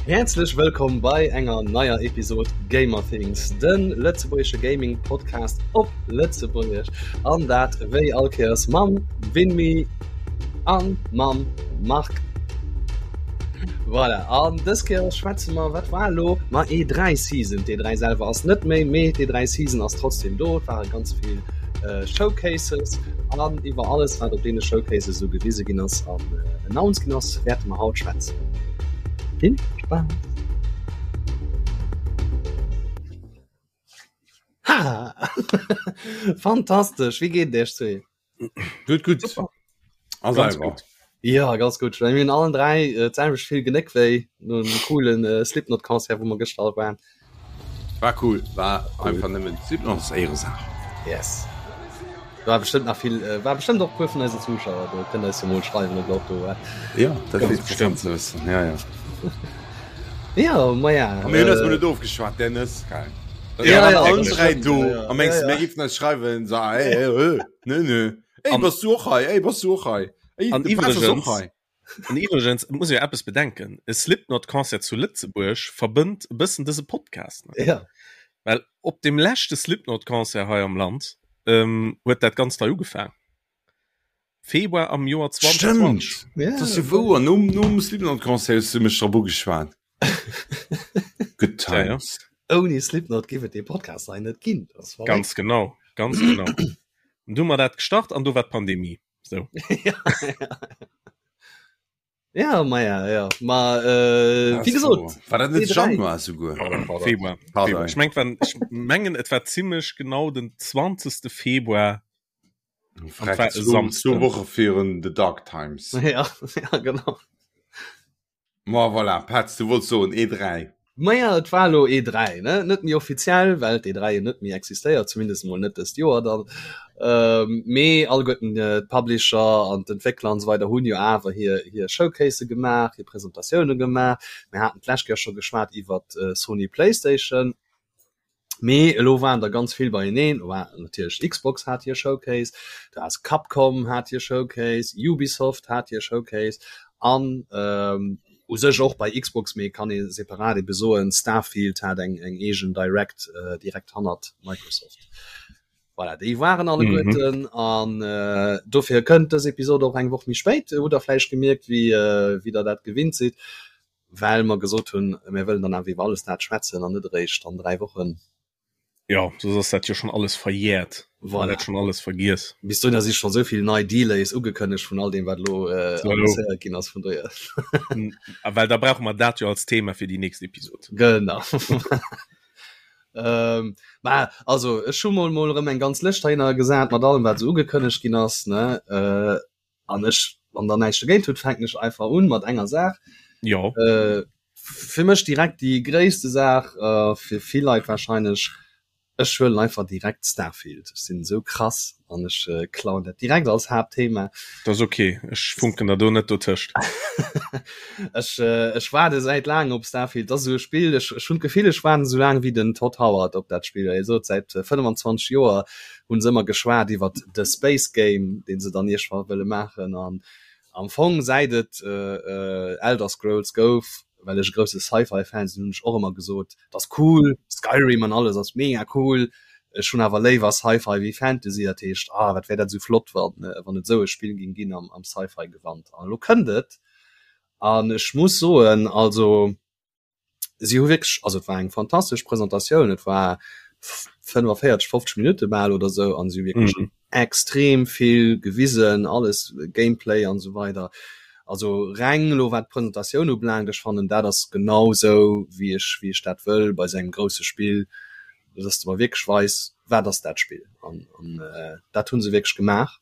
Häerzlech wëllkomm bei enger neier Episod Gamerthings, de lëtzebuergesche Gaming Podcast op Lëtzebuergesch. An dat wéi all Kéiers mam Winmi an mam Marc. Voilà, an dës Kéier schwätze mer, wat war elo? Ma E3 Season. D'E3 selwer ass net méi, mee d'E3 Season ass trotzdem do. Et ware ganz vill Showcases an iwwer alles, wat op deene Showcases esou gewise ginn ass an announced ginn ass, wäerte mer haut schwätzen. Vill Spaass! Ha! Fantastesch! Wéi geet et iech zwee? Gutt, gutt. Super. A Ganz selwer? gutt. Ja, ganz gutt. Mir hunn allen 3 äh, d'selwecht vill Genéck wéi no dem coolen äh, Slipknot-Concert, wou mer gëschter all waren. War cool, war einfach nëmmen Slipknot ass Éieresaach. Yes. War bestëmmt nach vill, äh, war bestëmmt och puer vun eisen Zuschauer do, kënnt eis jo mol schreiwen, ob der och do waart. Ja, dat wier interessant ze wëssen, ja, ja. Ja, ma ja. A mir hunn eis mol Äh, net ofgeschwat, Dennis, geil. Ja, Ja, ja, allen das 3 stimmt, do, ja, ja. a mengs Ja, du, ja. mir géifen eis schreiwen, so, ey, ey, ey, nö, nö. Ey, An- bass du och hei? Ey, bass du och hei? Ey, An de Pass ass och iwwregens- hei. An iwwregens et muss ee jo eppes bedenken, e Slipknot-Concert zu Lëtzebuerg verbënnt e bëssen dëse Podcast. Ne? Ja. Well op dem leschte Slipknot-Concert hei am Land ähm, huet dat Ganzt hei ugefaang. Februar am Joer 2020. Stimmt. Ja. Dat ass jo wouer. Nom, nom Slipknot-Concert hues du mech drop ugeschwat. Good Ja, ja. times. Ouni Slipknot géif et dee Podcast hei net ginn. Das war Ganz genau, ganz genau. Und du hu mer dat gestart an do war d'Pandemie. So. ja, ja. Ja, ma ja, ja. Ma, äh, wie gesot, War dat net E3. Januar souguer? Februar. Pardon. Februar. Ich meng, wann, ich mengen, et war ziemlich genau den 20. Februar. Freck, war e Samsden. Zwou Woche virun The Dark Times. Ja, ja, genau. Ma voilà, Petz, du wollts soen E3. Maja, et war elo E3, ne? Net méi offiziell, well d'E3 jo net méi existéiert, zumindest emol net dëst Joer dann. Mee alleguerten d'Publisher an d'Entwéckler an esou weider hunn jo awer hir hir Showcasë gemaach, hir Presentatioune gemaach. Mir haten d'lescht Kéier scho geschwat iwwert Sony Playstation. Mee elo waren der ganz vill beieneen. Do war natierlech Xbox hat hir Showcase, du has Capcom hat hir Showcase, Ubisoft hat hir Showcase an u sech och bei Xbox, mee kann ee separat ebe soen, Starfield hat eng eng eegen Direct direkt hannert Microsoft. Voilà, déi waren alleguerten an dofir kënnt dës Episod och eng Woch méi spéit. Hutt der vläicht gemierkt, wéi wéi der dat gewinnt sidd. Well mer gesot hunn, mir wëllen dann awer iwwer alles dat schwätzen an net eréischt an 3 Wochen. Jo, soss ass dat jo schonn alles verjährt. Voilà. Dat schonn alles vergiess. Bis dohinner si scho sou vill nei Delays ugekënnegt vun all deem, wat elo annoncéiert ginn ass, vun dohier. A well da brauche mer dat jo als Thema fir déi nächst Episod. Genau. Mä also, ech hu mol mol erëm eng ganz Lëscht heihinner gesat mat allem, wat esou ugekënnegt ginn ass, ne. An ech, wann der näischt dogéint hutt, fänken ech einfach un mat enger Saach. Jo. Äh, fir mech direkt déi gréisste Saach, äh, fir vill Leit wahrscheinlech, ech huelen einfach direkt Starfield. Ech sinn esou krass an ech äh, klauen dat direkt als Haaptthema. Dat ass ok, ech funken der do net dotëscht. Ech, äh, ech waarde säit laangem op Starfield. Dat ass esou e Spill, ech, ech hunn d'Gefill, ech waarden esou laang wéi den Todd Howard op dat Spill. Hie sot säit 25 Joer hunn se ëmmer geschwat iwwert de Space Game, deen se dann iergendwann wëlle maachen an am Fong säit et Elder Scrolls gouf, well ech e grousse Sci-Fi Fan sinn, hunn ech och ëmmer gesot, et ass cool, Skyrim an alles ass mega cool, ech hunn awer léiwer Sci-Fi wéi Fantasy, dat heescht, ah wat wär dat esou flott wann wann et esou e Spill ging ginn am am Sci-Fi Gewand an elo kënnt et an ech muss soen, also si hu wierklech, also et war eng fantastesch Presentatioun, et war 45, 50 Minutte bal oder sou an si hu wierklech mm. extrem vill gewisen, alles Gameplay an sou weider. Also reng lo wat d'Presentatioun ubelaangt, ech fannen dat ass genau sou wéi ech wéi ech dat wëll bei sou engem grousse Spill, dass de mer wierklech weis wat ass dat Spill an, an äh, dat hunn se wierklech gemaach.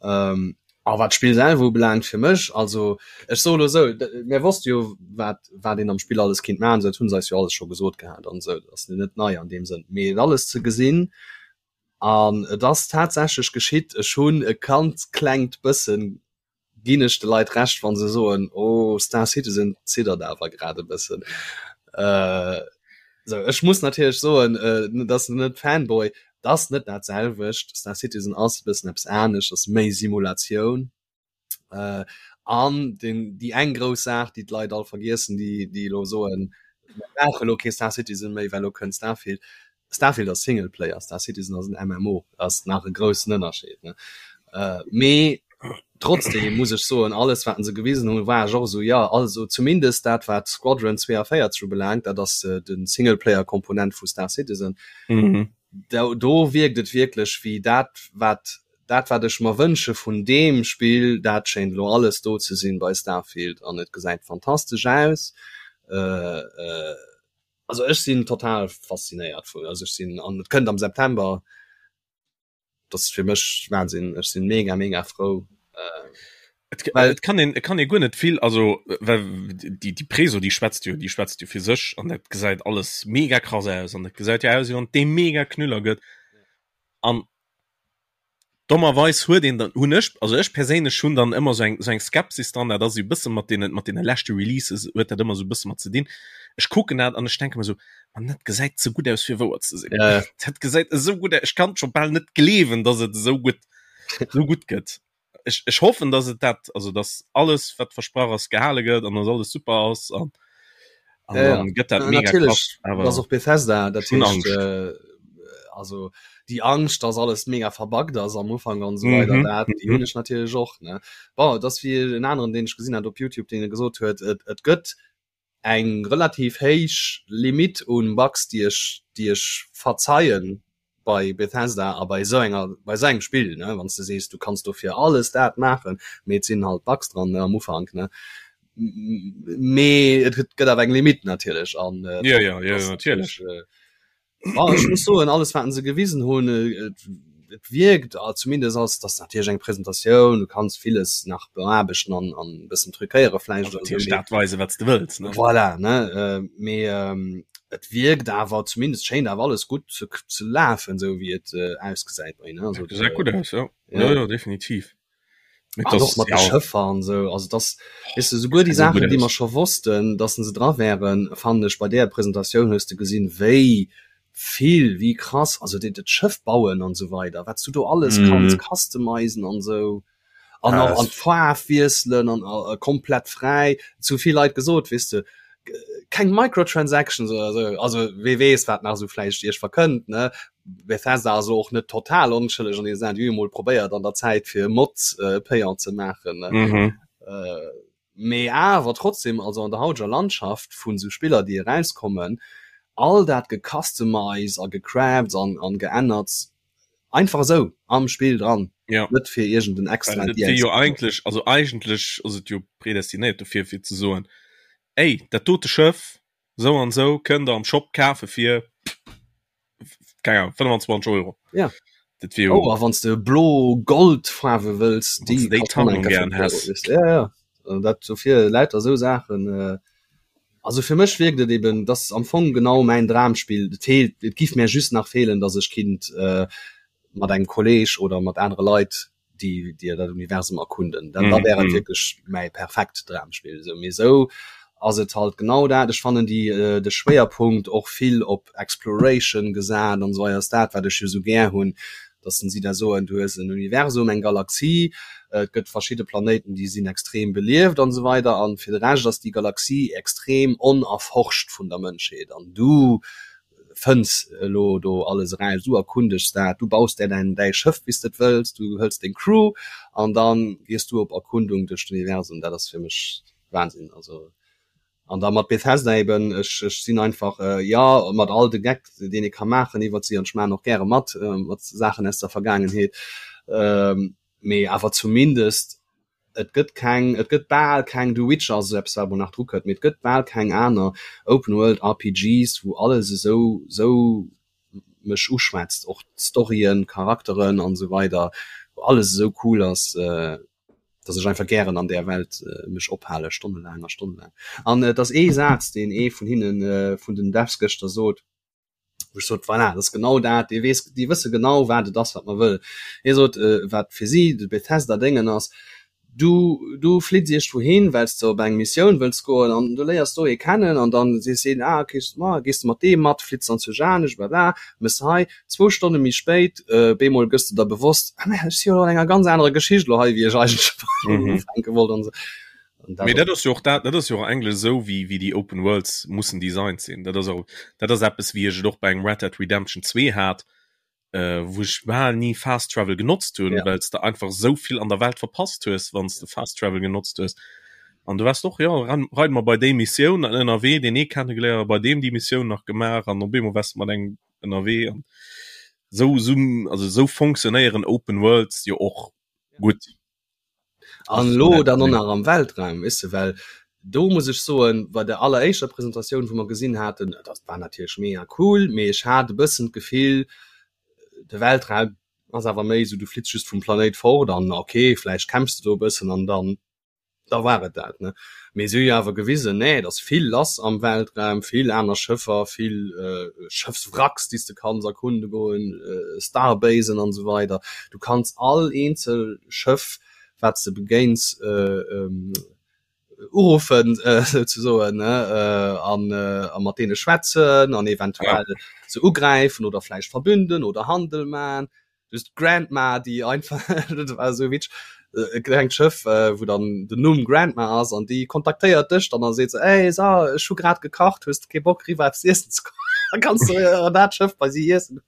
Ähm, a wat d'Spill selwer ubelaangt fir mech, also ech soe lo esou, mir wosste jo wat wat een am Spill alles kinnt maachen, dat hunn se eis jo alles scho gesot gehat an esou, dat ass net nei an deem Sënn, mee et alles ze gesinn an et ass tatsächlech geschitt, ech hunn e ganz klengt bëssen, ginn ech de Leit Recht wa se soen, oh Star Citizen ziddert awer grad e bëssen. Äh, sou ech muss natierlech soen, äh, dat ass net Fanboy, dat ass net dat selwecht. Star Citizen ass e bëssen eppes anescht, ass méi Simulatioun. Äh, An den, déi eng grouss Saach, déi d'Leit all vergiessen, déi, déi elo soen, mir brauche elo kee Star Citizen méi, well elo kënnt Starfield. Starfield ass Singleplayer, Star Citizen ass en MMO, ass nach e groussen Ënnerscheed, ne? Mee trotzdem muss ech soen, alles wat se gewisen hunn, war ech och esou, jo, also zumindest dat wat Squadron 42 ubelaangt, dat ass de Singleplayer-Komponent vu Star Citizen, do, do wierkt et wierklech wéi dat wat dat wat ech mer wënsche vun deem Spill, dat schéint elo alles do ze sinn bei Starfield an et gesäit fantastesch aus. Also ech sinn total faszinéiert vun, also ech sinn, an et kënnt am September, dat ass fir mech Wahnsinn, ech sinn mega mega frou. Et, well, et kann een, et kann ee guer net vill, also well déi déi Preso déi schwätzt jo, déi schwätzt jo fir sech an dat gesäit alles mega krass aus an dat gesäit jo aus wéi wann et dee mega Knüller gëtt an Dommerweis huet een dann, hunn ech, also ech perséinlech hunn dann ëmmer esou eng, esou eng Skepsis dran, dat ass esou e bësse mat deenen, mat deene leschte Releases huet dat ëmmer esou e bësse mat ze dinn. Ech kucken dat an ech denke mer esou, Mann, dat gesäit ze gutt aus fir wouer ze sinn. Ja. Dat gesäit esou gutt aus, ech kann scho bal net gleewen, datt et esou gutt, esou gutt gëtt. Ech, ech hoffen, datt et dat, also datt alles wat versprach ass gehale gëtt an datt alles super ass an, an ja, dann gëtt dat mega krass, awer ass och Bethesda, dat heescht, äh, also déi Angscht, dass alles mega verbuggt ass am Ufank an esou weider, mhm. dat déi hunn ech natierlech och ne. Bon, dass wéi en aneren, deen ech gesinn hat op YouTube, deen gesot huet, et, et gëtt eng relativ héich Limit un Bugs, déi ech, déi ech verzeien bei Bethesda a bei esou enger bei esou engem Spill ne, wann s de sees, du kanns dofir alles dat maachen, mee et sinn halt Bugs dran ne, am Ufank ne. Mee et gëtt awer eng Limit natierlech an äh, ja, ja, ja, natierlech. Äh, Ah, ech muss soen, alles wat se gewisen hunn, et, et wierkt ah, zumindest ass das natierlech eng Presentatioun, du kanns villes nach beaarbechten an an e bëssen truquéiere vläicht oder esou, mee dat weise wat s de wëlls ne. Voilà, ne, äh, mee ähm, et wierkt awer zumindest schéint awer alles gutt ze, ze lafen, esou wéi et äh, ausgesäit bei ne. Also, gesäit gutt aus, ja. Ja, ja, definitiv. An och mat de Schëffer an esou, also dass, weess de, souguer déi Saachen, déi mer scho wossten, dass se dra wären, fannen ech, bei där Presentatioun hues de gesinn, wéi vill, wéi krass, also dat dat Schëff bauen an esou weider, wat s du do alles kanns customizen an esou an och an d'Faarf wiesselen an komplett fräi. Et hu vill Leit gesot, weess de, keng Microtransactions oder esou, also wee weess, wat nach esou vläicht iech verkënnt, ne? Bethesda ass och net total onschëlleg an déi Saach, déi hu jo mol probéiert an der Zäit fir Mods äh, payant ze maachen. Ne? Mhm. Äh, mee awer trotzdem, also an der hauteger Landschaft vun sou Spiller déi erauskommen, all dat gecustomized a gecrafts an, an geännert, einfach esou am Spill dran, Ja. net fir iergend en extra Well et wier jo eigentlech, also eigentlech ass et jo predestinéiert dofir fir ze soen, ey, dat dote Schëff, sou an sou, kënnt der am Shop kafe fir keine Ahnung, 25 Euro. Ja. Dat wier Oh, a wann s de blo-gold-Faarwe wëlls, déi déi kascht dann Tarnung eng Kéier gären 5 Euro, häss. weess de. Ja, ja. Äh, Dat dofir lauter esou Saachen. Äh, also fir mech wierkt et eben, dass am Fong genau mäin Dramspill. Et feelt, et giff mär just nach feelen, dass ech kinnt äh, mat engem Kolleg oder mat anere Leit déi déi dat Universum erkunden. Dann, da wär et wierklech mäi perfekt Dramspill. Esou, mee esou ass et halt genau dat. Ech fannen déi äh, de Schwéierpunkt och vill op Exploration gesat an esou weider ass dat wat ech jo esou gär hunn, dass si da soen, du hues en Universum, eng Galaxie, et gëtt verschidde Planéiten déi sinn extrem belieft an esou weider an fir de Rescht ass déi Galaxie extrem onerforscht vun der Mënschheet an du fënns elo do alles eraus, du erkundegs dat, du baus där däin däi Schëff wéi s de et wëlls, du hëls deng Crew an dann gees du op Erkundung duerch d'Universum. Dat ass fir mech Wahnsinn. Also an da mat Bethesda eben, ech ech sinn einfach jo mat all de Geck deen ee ka maachen iwwert si an ech maachen och gäre mat mat Saachen aus der Vergaangenheet, mee awer zumindest Et gëtt keng, et gëtt bal keng, The Witcher ass esou eppes wat emol nach dru kënnt, mee et gëtt bal keng aner Open World RPGs wou alles esou esou mech uschwätzt, och d'Storyen, d'Charakteren an esou weider, wou alles esou cool ass, dass ech einfach gären an där Welt mech ophale stonnelaang a stonnelaang. An et ass ee Saz deen ee vun hinnen, vun den Devs gëschter sot, wou ech sot, voilà, dat ass genau dat, déi weess, déi wësse genau wat et ass wat mer wëll. Hie sot, wat fir si de Bethesda-Déngen ass, Du du flitts iergendwou hin, well s de op eng Missioun wëlls goen an du léiers do ee kennen an dann sees heen, ah okay, ma gees de mat deem mat, flitts dann zu Janesch, blabla, mëss hei. Zwou Stonne méi spéit, bemol gëss de der bewosst, ah mä ech si jo elo an enger ganz anerer Geschicht elo hei, wéi ech eigentlech ufänke wollt an esou. An dat Mee dat ass jo och dat, dat ass jo och eigentlech esou, wéi wéi déi Open Worlds mussen designt sinn. Dat ass och, dat ass eppes, wéi ech et och bei engem Red Dead Redemption 2 hat, äh, wou ech bal ni Fast Travel genotzt hunn, ja. well s de einfach sou vill an der Welt verpasst hues, wann s de Fast Travel genotzt hues. An du warst och ja reid mer bei déi Missioun an ënnerwee deen ee kennegeléiert, bei deem déi Missioun nach gemaach an op eemol wars de mat engem ënnerwee an sou sou also sou fonctionnéieren Open Worlds jo och gutt. An elo dann och nach am Weltraum, weess de, well do muss ech soen, bei der alleréischter Presentatioun, wou mer gesinn haten, dat war natierlech mega cool, mee ech hat e bëssen d'Gefill, de Weltraum ass awer méi esou, du flitts just vum Planéit fort an ok, vläicht kämpfs de do e bëssen an dann da war et dat, ne. Mee si hu jo awer gewisen, nee, et ass vill lass am Weltraum, vill aner Schëffer, vill Schëffswracks, déi s de kanns erkunde goen, Starbasen an esou weider. Du kanns all eenzel Schëff, wat s de begéins, uruffen, souzesoen, ne, an a mat deene schwätzen an eventuell se ugräifen oder vläicht verbünden oder Handel man. Just d'Grandma, déi einfach, dat war esou witzeg, e klengt Schëff, wou dann den Numm Grandma ass an déi kontaktéiert dech dann a seet se, Ey, so, ech hu grad gekacht, hues de kee Bock eriwwer eppes iessen ze kommen? Da kanns du an dat Schëff bei si iessen.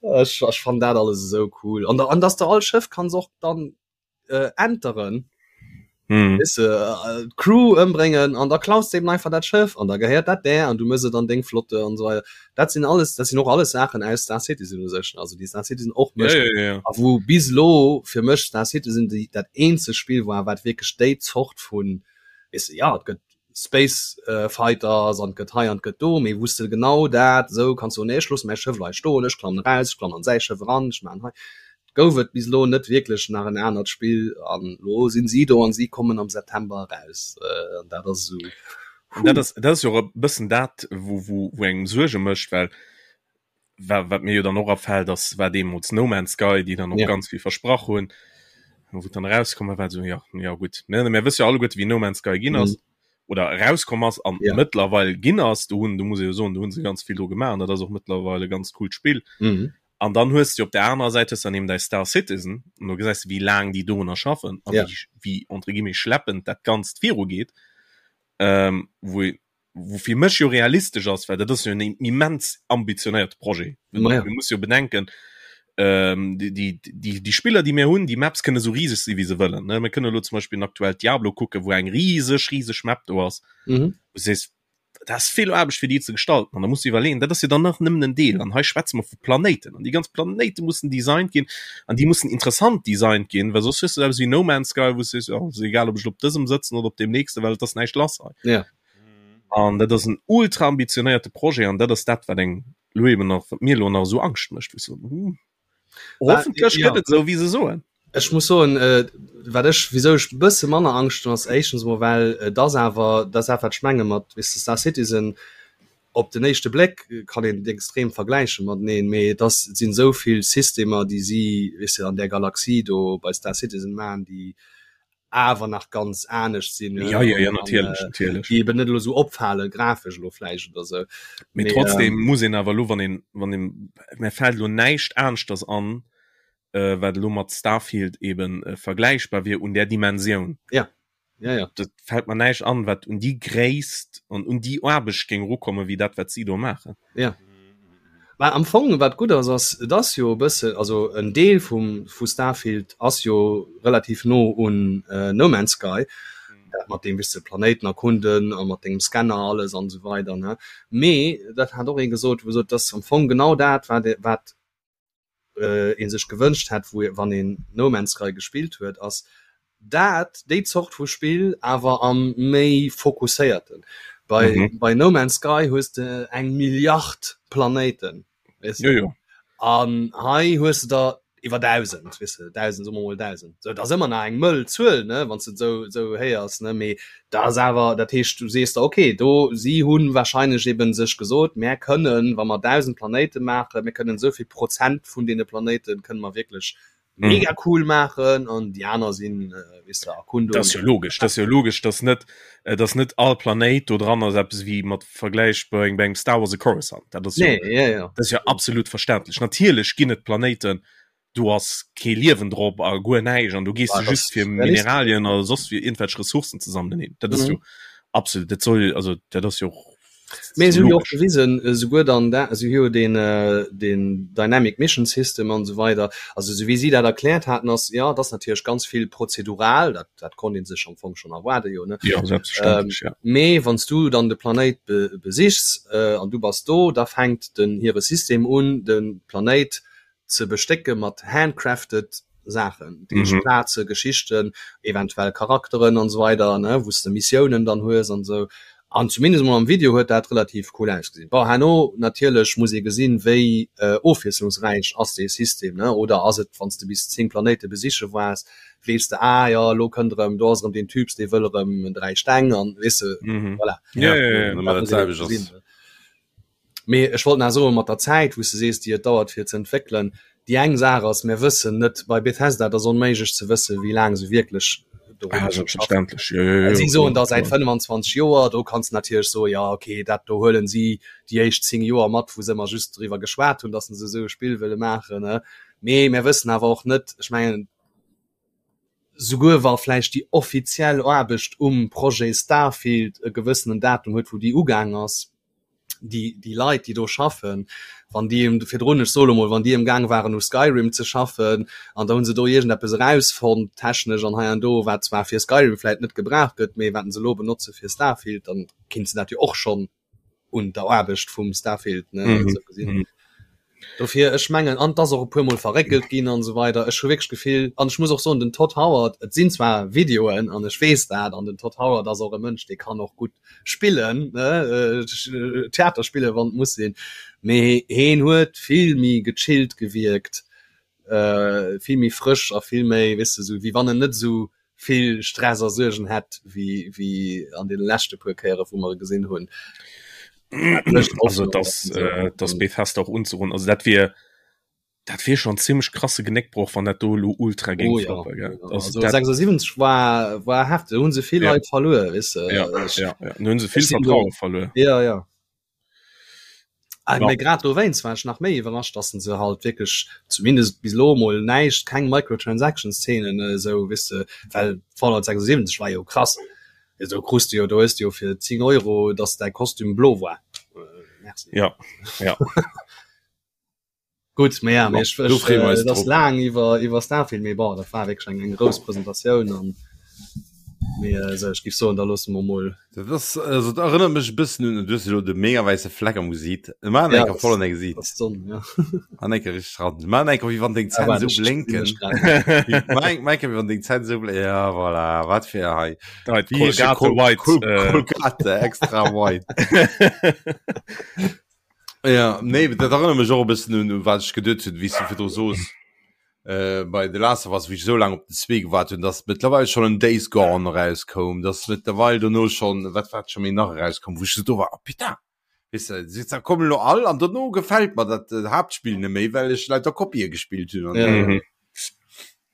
Ech, ech fannen dat alles esou cool. An, an dass de all Schëff kanns och dann äh, enteren hm. Weißt du, äh, Crew ëmbréngen an da klaus de eben einfach dat Schëff an da gehéiert dat där an du mëss et an deng Flotte an so weiter. Dat sinn alles dat sinn och alles Saachen aus Star Citizen u sech also déi Star Citizen och mécht ja, ja, ja. a wou bis lo fir mech Star Citizen déi dat eenzegt Spill war wat wierklech déi Zort vun weißt du, ja et gëtt Space äh, Fighters an gëtt hei an gëtt do mee wous de genau dat sou kanns du nee ech loosse mäi Schëff hei stoen ech klammen raus ech klammen an säi Schëff eran ech maan hei gouf et bis elo net wierklech nach en anert Spill an elo sinn si do an si kommen am September eraus an dat ass esou. An dat ass dat ass jo och e bëssen dat wou wou wou engem Suerge mécht, well wa wat mir jo dann och afält ass war deemools No Man's Sky, déi dann och ja. ganz vill versprach hunn, wou dann erauskomm war so ja ja gutt mir mir wësse jo alleguerte wéi No Man's Sky ginn ass. Mhm. Oder erauskomm ass an ja. mëttlerweil ginn ass, do hunn do muss ee jo soen, do hunn se ganz vill dru gemaach an dat ass och mëttlerweil e ganz coolt Spill. Mhm. An dann hues du op der anerer Säit hues dann eben däi Star Citizen an do gesäis du wéi laang déi dorunner schaffen a ja. wéi, wéi entre guillemets schleppend dat Ganzt virugeet, ähm, wou wou fir mech jo realistesch ass, well dat ass jo en immens ambitionéierte Projet. Ma ja. Du muss jo bedenken, ähm, déi, déi, déi, déi Spiller, déi mir hunn, déi Maps kënne sou riseg si wéi se wëllen. Ne? Mir kënne lo zum Beispill aktuell Diablo kucken, wou eng riseg, riseg Map do ass. Mhm. Du sees, dat ass vill Aarbecht fir déi ze gestalten an da muss du iwwerleeën, dat ass jo dann nach nëmmen en Deel an hei schwätze mer vu Planéiten an déi ganz Planéite mussen designt ginn an déi mussen interessant designt ginn, well soss hues du eppes wéi No Man's Sky, wou s du sees, jo ass egal ob ech lo op dësem sëtzen oder op deem nächsten, well et ass näischt lass hei. Ja. An dat ass en ultra ambitionéierte Projet an dat ass dat wat eng lo eben nach, wat mir lo nach esou Angscht mécht, wou ech soen, hm, Hoffentlech gëtt et esou wéi se soen. Ech muss soen, wat ech, wisou ech e bësse manner Angscht hunn, ass éischtens emol well et ass awer, dat ass dat wat ech menge mat, weess de, Star Citizen, op den éischte Bléck kann een et extrem vergläiche mateneen, mee et ass, et sinn esou vill Systemer déi si, weess de, an där Galaxie do bei Star Citizen maachen, déi awer nach ganz anescht sinn ja, ja, ja, natierlech, äh, natierlech. déi eben net elo sou opfale grafesch elo vläicht oder sou. Mee trotzdem ähm, muss een awer lo wann een wann een mir fält lo näischt aneschters an äh, wat elo mat Starfield eben äh, vergläichbar wier un där Dimensioun. Ja. Ja, ja. Dat fält mer näischt an, wat un déi Gréisst an un déi Aarbecht géing erukommen, wéi dat wat si do maachen. Ja. Mä am Fong, wat gutt ass, ass, et ass jo e bësse, also en Deel vum, vu Starfield ass jo relativ no un No Man's Sky, dat mat deem, wéi s de Planéiten erkunden a mat dengem Scanner alles an esou weider, ne. Mee dat hat och ee gesot, wou gesot, et ass am Fong genau dat, wat, wat ee sech gewënscht hätt, wou wann een No Man's Sky gespillt huet, ass dat déi Zort vu Spill awer am méi fokusséierten. Bei, mhm. bei No Man's Sky hues de eng Milliard Planéiten. Weißt du? Ja, ja. An hei hues du der iwwer 1000 weißt du, 1000 soe mer mol 1000. So, dat ass ëmmer nach eng mëll Zuel, ne, wann s du sou, sou héiers, ne, mee dat ass awer, dat heescht, du sees der, okay, do, si hunn wahrscheinlech eben sech gesot, mär kënnen, wa mer 1000 Planéite maachen, mir kënnen esou vill Prozent vun deene Planéite kënne mer wierklech. Mhm. mega cool maachen an déi aner sinn äh, weess de Erkundung. Dat ass jo logesch, dat ass jo logesch, dass net äh, dass net all Planéit do dran ass eppes wéi mat Vergläich bei engem bei engem Star Wars e Coruscant. Dat ass jo, Nee, ja, ja. dat ass jo absolut verständlech. Natierlech ginn et Planéiten, do ass kee Liewen drop a guer näischt an do gees Bah, du just das fir ist realistesch. Mineralien oder soss fir iergendwelch Ressourcen ze sammelen hin. Dat ass Mhm. jo absolut, dat soll also dat ass jo och Mee so se hunn jo och logesch. gewisen, esouguer dann da, se hu jo deen, deen Dynamic Mission System an esou weider, also esou wéi si dat erkläert haten, ass, jo, et ass natierlech ganz vill prozedural, dat, dat konnt ee sech am Fong schonn erwaarde jo, ne? Jo, selbstverständlech, ja. Mee wann s du dann de Planéit be, besichs an du bass do, da fänkt den hire System un, de Planéit ze bestécke mat handcrafted Saachen, dat heescht Plaze, Geschichten, eventuell Charakteren an esou weider, ne, wou s de Missiounen dann hues an esou. An zumindest emol am Video huet dat relativ cool ausgesinn. Bon, herno natierlech muss ee gesinn, wéi ofwiesslungsräich ass dee System, ne, oder ass et, wann s de bis 10 Planéite besiche waars, weess de, ah jo, elo kënnt erëm, do ass erëm deen Typs, dee wëll erëm 3 Steng an, weess de, voilà. Ja, dat muss een ebe gesinn, ne. Mee ech wollt nach soen, mat der Zäit, wou s de sees, déi et dauert fir ze entwéckelen, déi eng Saach ass, mir wëssen net, bei Bethesda, et ass onméiglech ze wëssen, wéi laang se wierklech Ah, dorunner schaffen. selbstverständlech, jo, jo, jo, Si soen kloer, da säit kloer. 25 Joer, do kanns de natierlech soen, jo okay, dat do huelen si déi éischt 10 Joer mat, wou se ëmmer just driwwer geschwat hunn, datt se esou e Spill wëlle maachen, ne. Mee mir wëssen awer och net, ech mengen, souguer wa vläicht déi offiziell Aarbecht um Projet Starfield e gewëssenen Datum huet, wou déi ugaang ass, déi, déi Leit, déi do schaffen, wann déi em virdrun, ech soe lo mol, wann déi emgaang waren u Skyrim ze schaffen an da hu se do iergendeppes erausfonnt, technesch an hei an do, wat zwar fir Skyrim vläit net gebraucht gëtt, mee wat se elo benotze fir Starfield, dann kinnt se dat jo och schonn un der Aarbecht vum Starfield, ne, Mhm. esou gesinn. Dofir, ech mengen, an 't ass och e puermol verréckelt ginn an esou weider, ech hu wierklech d'Gefill, an ech muss och soen, den Todd Howard, et sinn zwar Videoen an ech weess dat, an den Todd Howard ass och e Mënsch, dee kann och gutt spillen, ne, Theater spillen, wann et muss sinn, mee heen huet vill méi gechillt gewierkt, vill méi frësch a vill méi, weess de, esou wéi wann en net esou vill Stress a Suergen hätt wéi wéi an deene leschte puer Kéiere wou mer e gesinn hunn. Also dass äh, dass Bethesda och unzerun also dat wier dat wier schon ziemlech krasse Genéckbroch wann dat do lo ultra géing oh, ja. floppen, gell? Ja, Also also dat 76 war war heftig, hunn se vill Ja. Leit verluer, weess de. ja, Ech- ja, ja. Nun hunn se vill ech sinn do- Vertraue verluer. Ja, ja. Ah, Ja. Mee grad dowéinst war ech nach méi iwwerrascht, dass se halt wierklech zumindest bis elo mol näischt, keng Microtransactions-Szenen esou, weess de, well Fallout 76 war jo krass. Do krus de jo, do hues de jo fir 10 Euro, dass däi Kostüm blo war. Merci. Ja, ja. Gutt, mee ja, mee ech, Do ech, freeë mer äh, eis et ass drop. laang iwwer, iwwer Starfield, mee bon, dat war wierklech eng, eng grouss Presentatioun an mee äh, sou, ech giff soen, da loosse mer mol. Dat ass, also dat erënnert mech e bëssen un, du hues elo de mega wäisse Fleck am Gesiit. Maan Ja, enker das, voll an dein Gesiit. das ass d'Sonn, ja. An enker richteg ran. Maan enker, wéi wann deng Ah, Zänn waart, esou ech sinn blénken. ech grad. Maan eng- maan enker, wéi wann deng Zänn esou blénken. Ja, voilà, wat fir hei. Da Wéi heescht de Colgate Col White. Col Äh, Colgate extra white. Ja, nee, dat erënnert mech och e bëssen un, un wat ech geduet hunn, wéi s du virdru soos, äh, bei The Last of Us, wéi ech esou laang op den zwee gewaart hunn, dass mëttlerweil schonn en Days Gone erauskoum, dass mëttlerweil dono schonn, wat wat scho méi nach erauskoum, wou ech esou do war, oh putain, weess de, se se kommen elo all an dono gefält mer dat äh, Haaptspill net méi, well ech lauter Kopië gespillt hunn an Ja. mhm.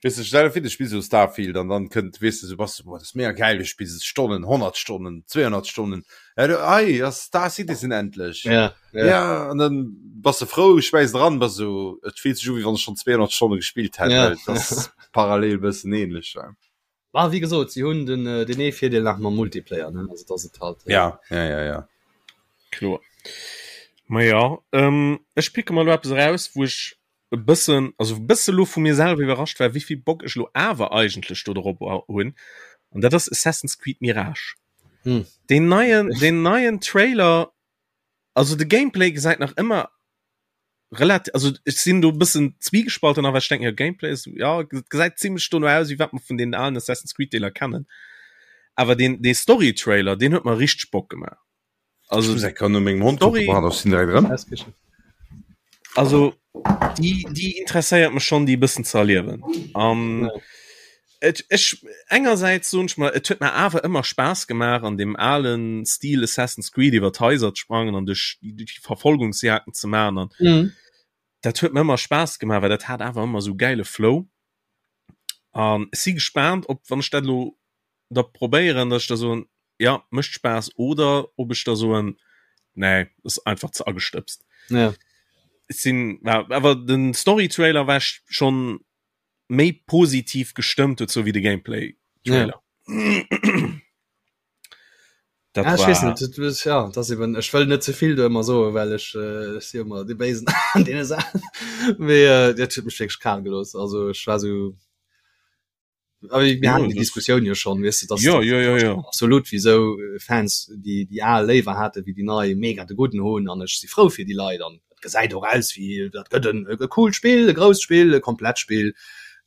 Weess de, stell dir vir, du spills esou Starfield an dann kënnt, weess de, sou bass du, boah, dat ass mega gäil, du spills et Stonnen, 100 Stonnen, 200 Stonnen, ja, du, ei, ass Star Citizen endlech. Ja, ja. Ja, an dann bass de frou, schmäiss et eran, bass esou, et fillt sech u, wéi wann ech schonn 200 Stonne gespillt hätt, Ja. well et ass parallel e bëssen ähnlech, ja. Bah, wéi gesot, si hunn den, deen ee Virdeel nach mam Multiplayer, ne, also dass et halt. Ja, ja, ja, ja. Kloer. Ma ja, ähm, ech picke mer elo eppes eraus, wou ech e bëssen, also e bësse lo vu mir selwer iwwerrascht war, wéivill Bock ech lo awer eigentlech do drop hunn. An dat ass Assassin's Creed Mirage. Hm. Deen neien, deen neien Trailer, also de Gameplay gesäit nach ëmmer relativ, also ech sinn do e bëssen zwiegespalten, awer ech denken, jo, Gameplay ass, ja, gesäit zimmlech dono aus, wéi wat mer vun deenen alen Assassin's Creed Deeler kennen. Awer deen, dee Story-Trailer, deen huet mer richteg Bock gemaach. Also Also kann no mengem Hond Story- kucken, pardon, ech sinn direkt erëm. also déi déi interesséiert mech schon déi e bëssen ze erliewen. An et ech engersäits soen ech mer et huet mer awer ëmmer Spaass gemaach an deem alen Stil Assassin's Creed iwwer d'Haiser ze sprangen an duerch déi Verfolgungsjagden ze maachen an Mhm. dat huet mer ëmmer Spaass gemaach, well dat hat awer ëmmer sou gäile Flow. An ech si gespaant, ob wann ech dat elo da probéieren, dass ech da soen, ja mécht Spaass oder ob ech da soen, nee, ass einfach ze agestëbst. Ja. Ech sinn, awer den Story-Trailer war ech schonn méi positiv gestëmmt dozou wéi de Gameplay-Trailer. Ja. Dat ja, war... net, das, ja, das eben, ech wëll net zevill do ëmmer soen, well ech äh, si ëmmer de Béisen an deene Saachen. Mee äh, dat huet mech wierklech kal gelooss. Also ech war so Aber wir ja, hatten die Diskussion ja schon weißt du, dass ja, ja, ja, ja. absolut wieso äh, Fans die die al léiwer hatte wie die nei mega de guten hunn an ech si frou fir die Leit an gesäit och aus wie dat gëtt en e coolt Spill, e grousst Spill, e komplett Spill.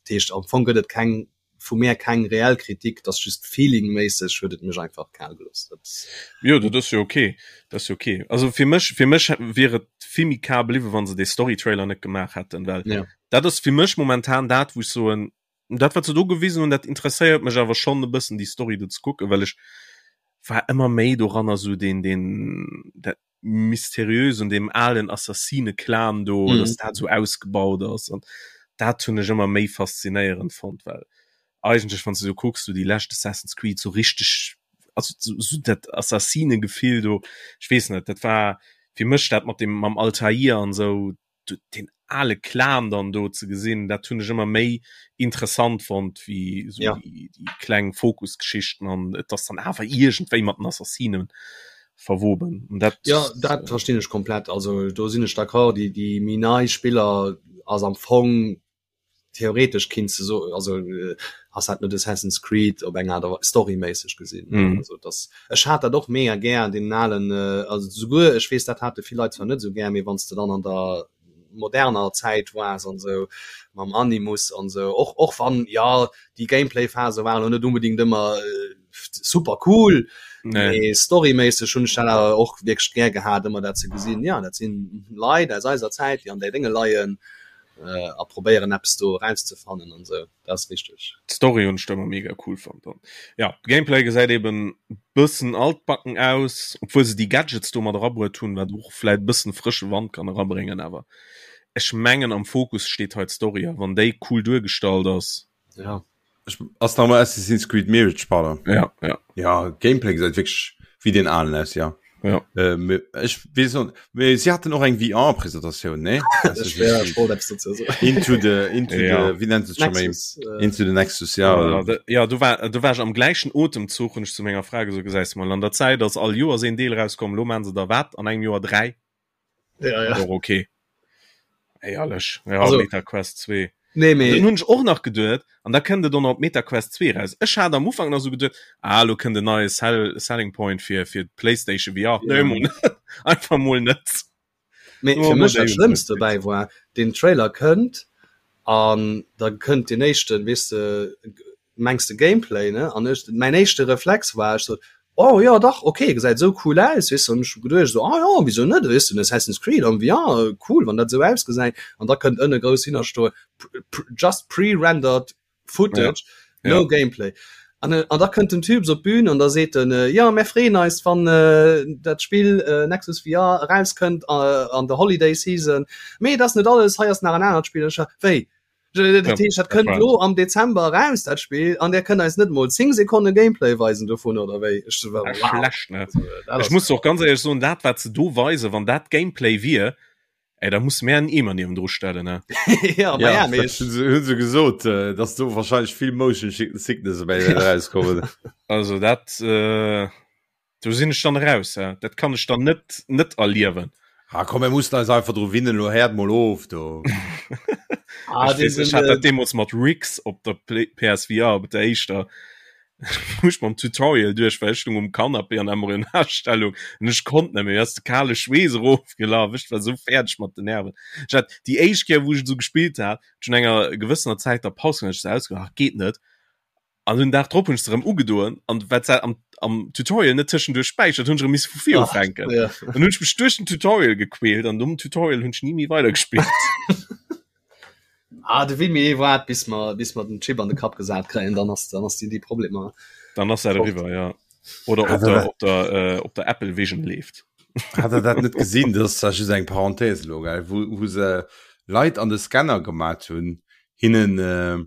Dat heescht am Fong gëtt et keng vu mär keng reell Kritik, dat ass just feelingméisseg huet et mech einfach kal gelooss. Dat Jo, dat ass jo ok, dat ass jo ok. Also fir mech fir mech wier et vill méi kal bliwwen, wann se dee Story-Trailer net gemaach hätten, well ja. dat ass fir mech momentan dat, wou ech soen, dat wat se do gewisen hunn, dat interesséiert mech awer schonn e bëssen déi Story do ze kucken, well ech war ëmmer méi doranner sou deen deen dat mysteriös un deem alen Assassine-Clan do, mhm. dass dat sou ausgebaut ass an dat hunn ech ëmmer méi faszinéierend fonnt, well eigentlech wann du sou kucks, du déi lescht Assassin's Creed sou richteg also so, so dat Assassine-Gefill do, ech weess net, dat war fir mech dat mat dem mam Altair an sou den ale Clan dann do ze gesinn, dat hunn ech ëmmer méi interessant fonnt wéi sou ja. déi, déi kleng Fokusgeschichten an et ass dann awer iergendwéi mat den Assassinen verwoben. Und dat, ja, dat verstinn ech komplett. Also do sinn ech d'accord, déi, déi méi nei Spiller ass am Fong theoretesch kinns de so also äh, ass dat net Assassin's Creed op eng Art a storyméisseg gesinn mm. also das ech hat dat och mega gär den alen äh, also souguer ech weess dat hate vill Leit zwar net sou gär mee wann s de dann an der moderner Zäit waars an sou mam Animus an sou och och wann ja déi Gameplay-Phase waren lo net unbedingt ëmmer äh, super cool nee. storyméisseg hunn ech dat awer och wierklech gär gehat ëmmer dat ze gesinn ja dat sinn Leit aus eiser Zäit déi an där Dénge leien äh, a probéieren eppes do erauszefannen an sou dat ass richteg. D'Story hunn ech ëmmer mega cool fonnt an ja Gameplay gesäit eben bëssen altbacken aus, obwuel se déi Gadgets do mat erabruet hunn, wat och vläit bëssen frësche Wand kann erabréngen, awer ech mengen am Fokus steet hei d'Story a wann déi cool duergestallt ass. Ja. Ech, ass nach mal Assassin's Creed Mirage, pardon. Ja, ja. Ja, Gameplay gesäit wierklech wéi den alen aus, ja. Ja. Äh, ech weess net, mee si haten och eng VR-Presentatioun, nee? Ech wär, ech wollt eppes dozou soen. Into the, into Ja. the, wéi nennt se scho méi? Nexus, äh, Into the Nexus, ja. Ja, da, ja, du war, du war ech am gläichen Otemzuch hunn ech zu menger Fra gesot, gesäis mol, an der Zäit ass all Joers een Deel rauskomm, lo maan se der wat an engem Joer 3. Ja, ja. Och okay. Éierlech, ja, Also- Meta Quest 2. Nee, mee. Dann hunn ech och nach geduet, an da kënnt et och nach op Meta Quest 2 raus. Ech hat am Ufank nach sou geduet, ah, lo kënnt en neie Sell Selling Point fir fir d'PlayStation VR. Ja. Nee, mol net. Einfach mol net. Mee Oh, fir mech dat déi- Schlëmmst dobäi war, den Trailer kënnt an da kënnt den éischten, weess de, mengs de Gameplay, ne? An ech, mäin éischte Reflex war, ech sot, oh jo dach, okay, gesäit esou cool aus, weess de, an ech hu geduecht esou, ah jo, wisou net, weess de, Assassin's Creed am VR, cool, wann dat esou ausgesäit. An da kënnt ënne grouss hinnerstoen, just pre-rendered footage, Ja. no gameplay. An, an da kënnt den Typ op d'Bün an da seet en, jo, mär freeën eis, wann dat Spill Nexus VR erauskënnt an der Holiday Season, mee et ass net alles, hei ass nach en anert Spill. Ech, wéi? Dat heescht, dat kënnt lo am Dezember eraus, dat Spill, an der kënnt eis net mol 10 Sekonne Gameplay weisen dovun, oder wéi? Ech war, wow. Schlecht, ne? Ech muss och ganz éierlech soen, dat wat se do weisen, wann dat Gameplay wier, ey, da musse mär en Eemer niewendru stellen, ne? Ja, ma ja, mee ech. Hunn se gesot, dass do wahrscheinlech vill Motion Sickness dobäi wäert erauskommen. Also dat. Do sinn ech dann raus, ja. Dat kann ech dann net net erliewen. Ah komm, mir mussen eis einfach dru winnen, lo héiert mol of do. Ah, ech weess, ech hat dat deemools mat Rigs op der PSVR, op der éischter, wou ech mam Tutorial duerch war, ech stung um Canapé an Embryonalstellung an ech konnt net méi, mir ass de kale Schweess erofgelaf, ech war sou fäerdeg mat den Nerven. Ech hat déi éischt Kéier, wou ech et sou gespillt hat, hat ech no enger gewëssener Zäit da Paus gemaach, ech sou ausgemaach, ach geet net. An den Dag drop hunn ech se erëm ugedoen an wat se am, am Tutorial net tëschenduerch späichert, hunn ech erëm misse vu vir ufänken. Ja. Dann hunn ech mech duerch den Tutorial gequält an nom Tutorial hunn ech ni méi weidergespillt. Ah, de Wimmy waart bis mer bis mer den Chip an de Kapp gesat kréien, dann ass dann ass déi déi Problemer. Dann ass dat eriwwer, ja. Oder op der, op der, äh, op der Apple Vision leeft. Hat der dat net gesinn? Dat ass zwar just eng Parenthèse elo, gell, wou, wou se Leit an de Scanner gemat hunn, hinnen äh,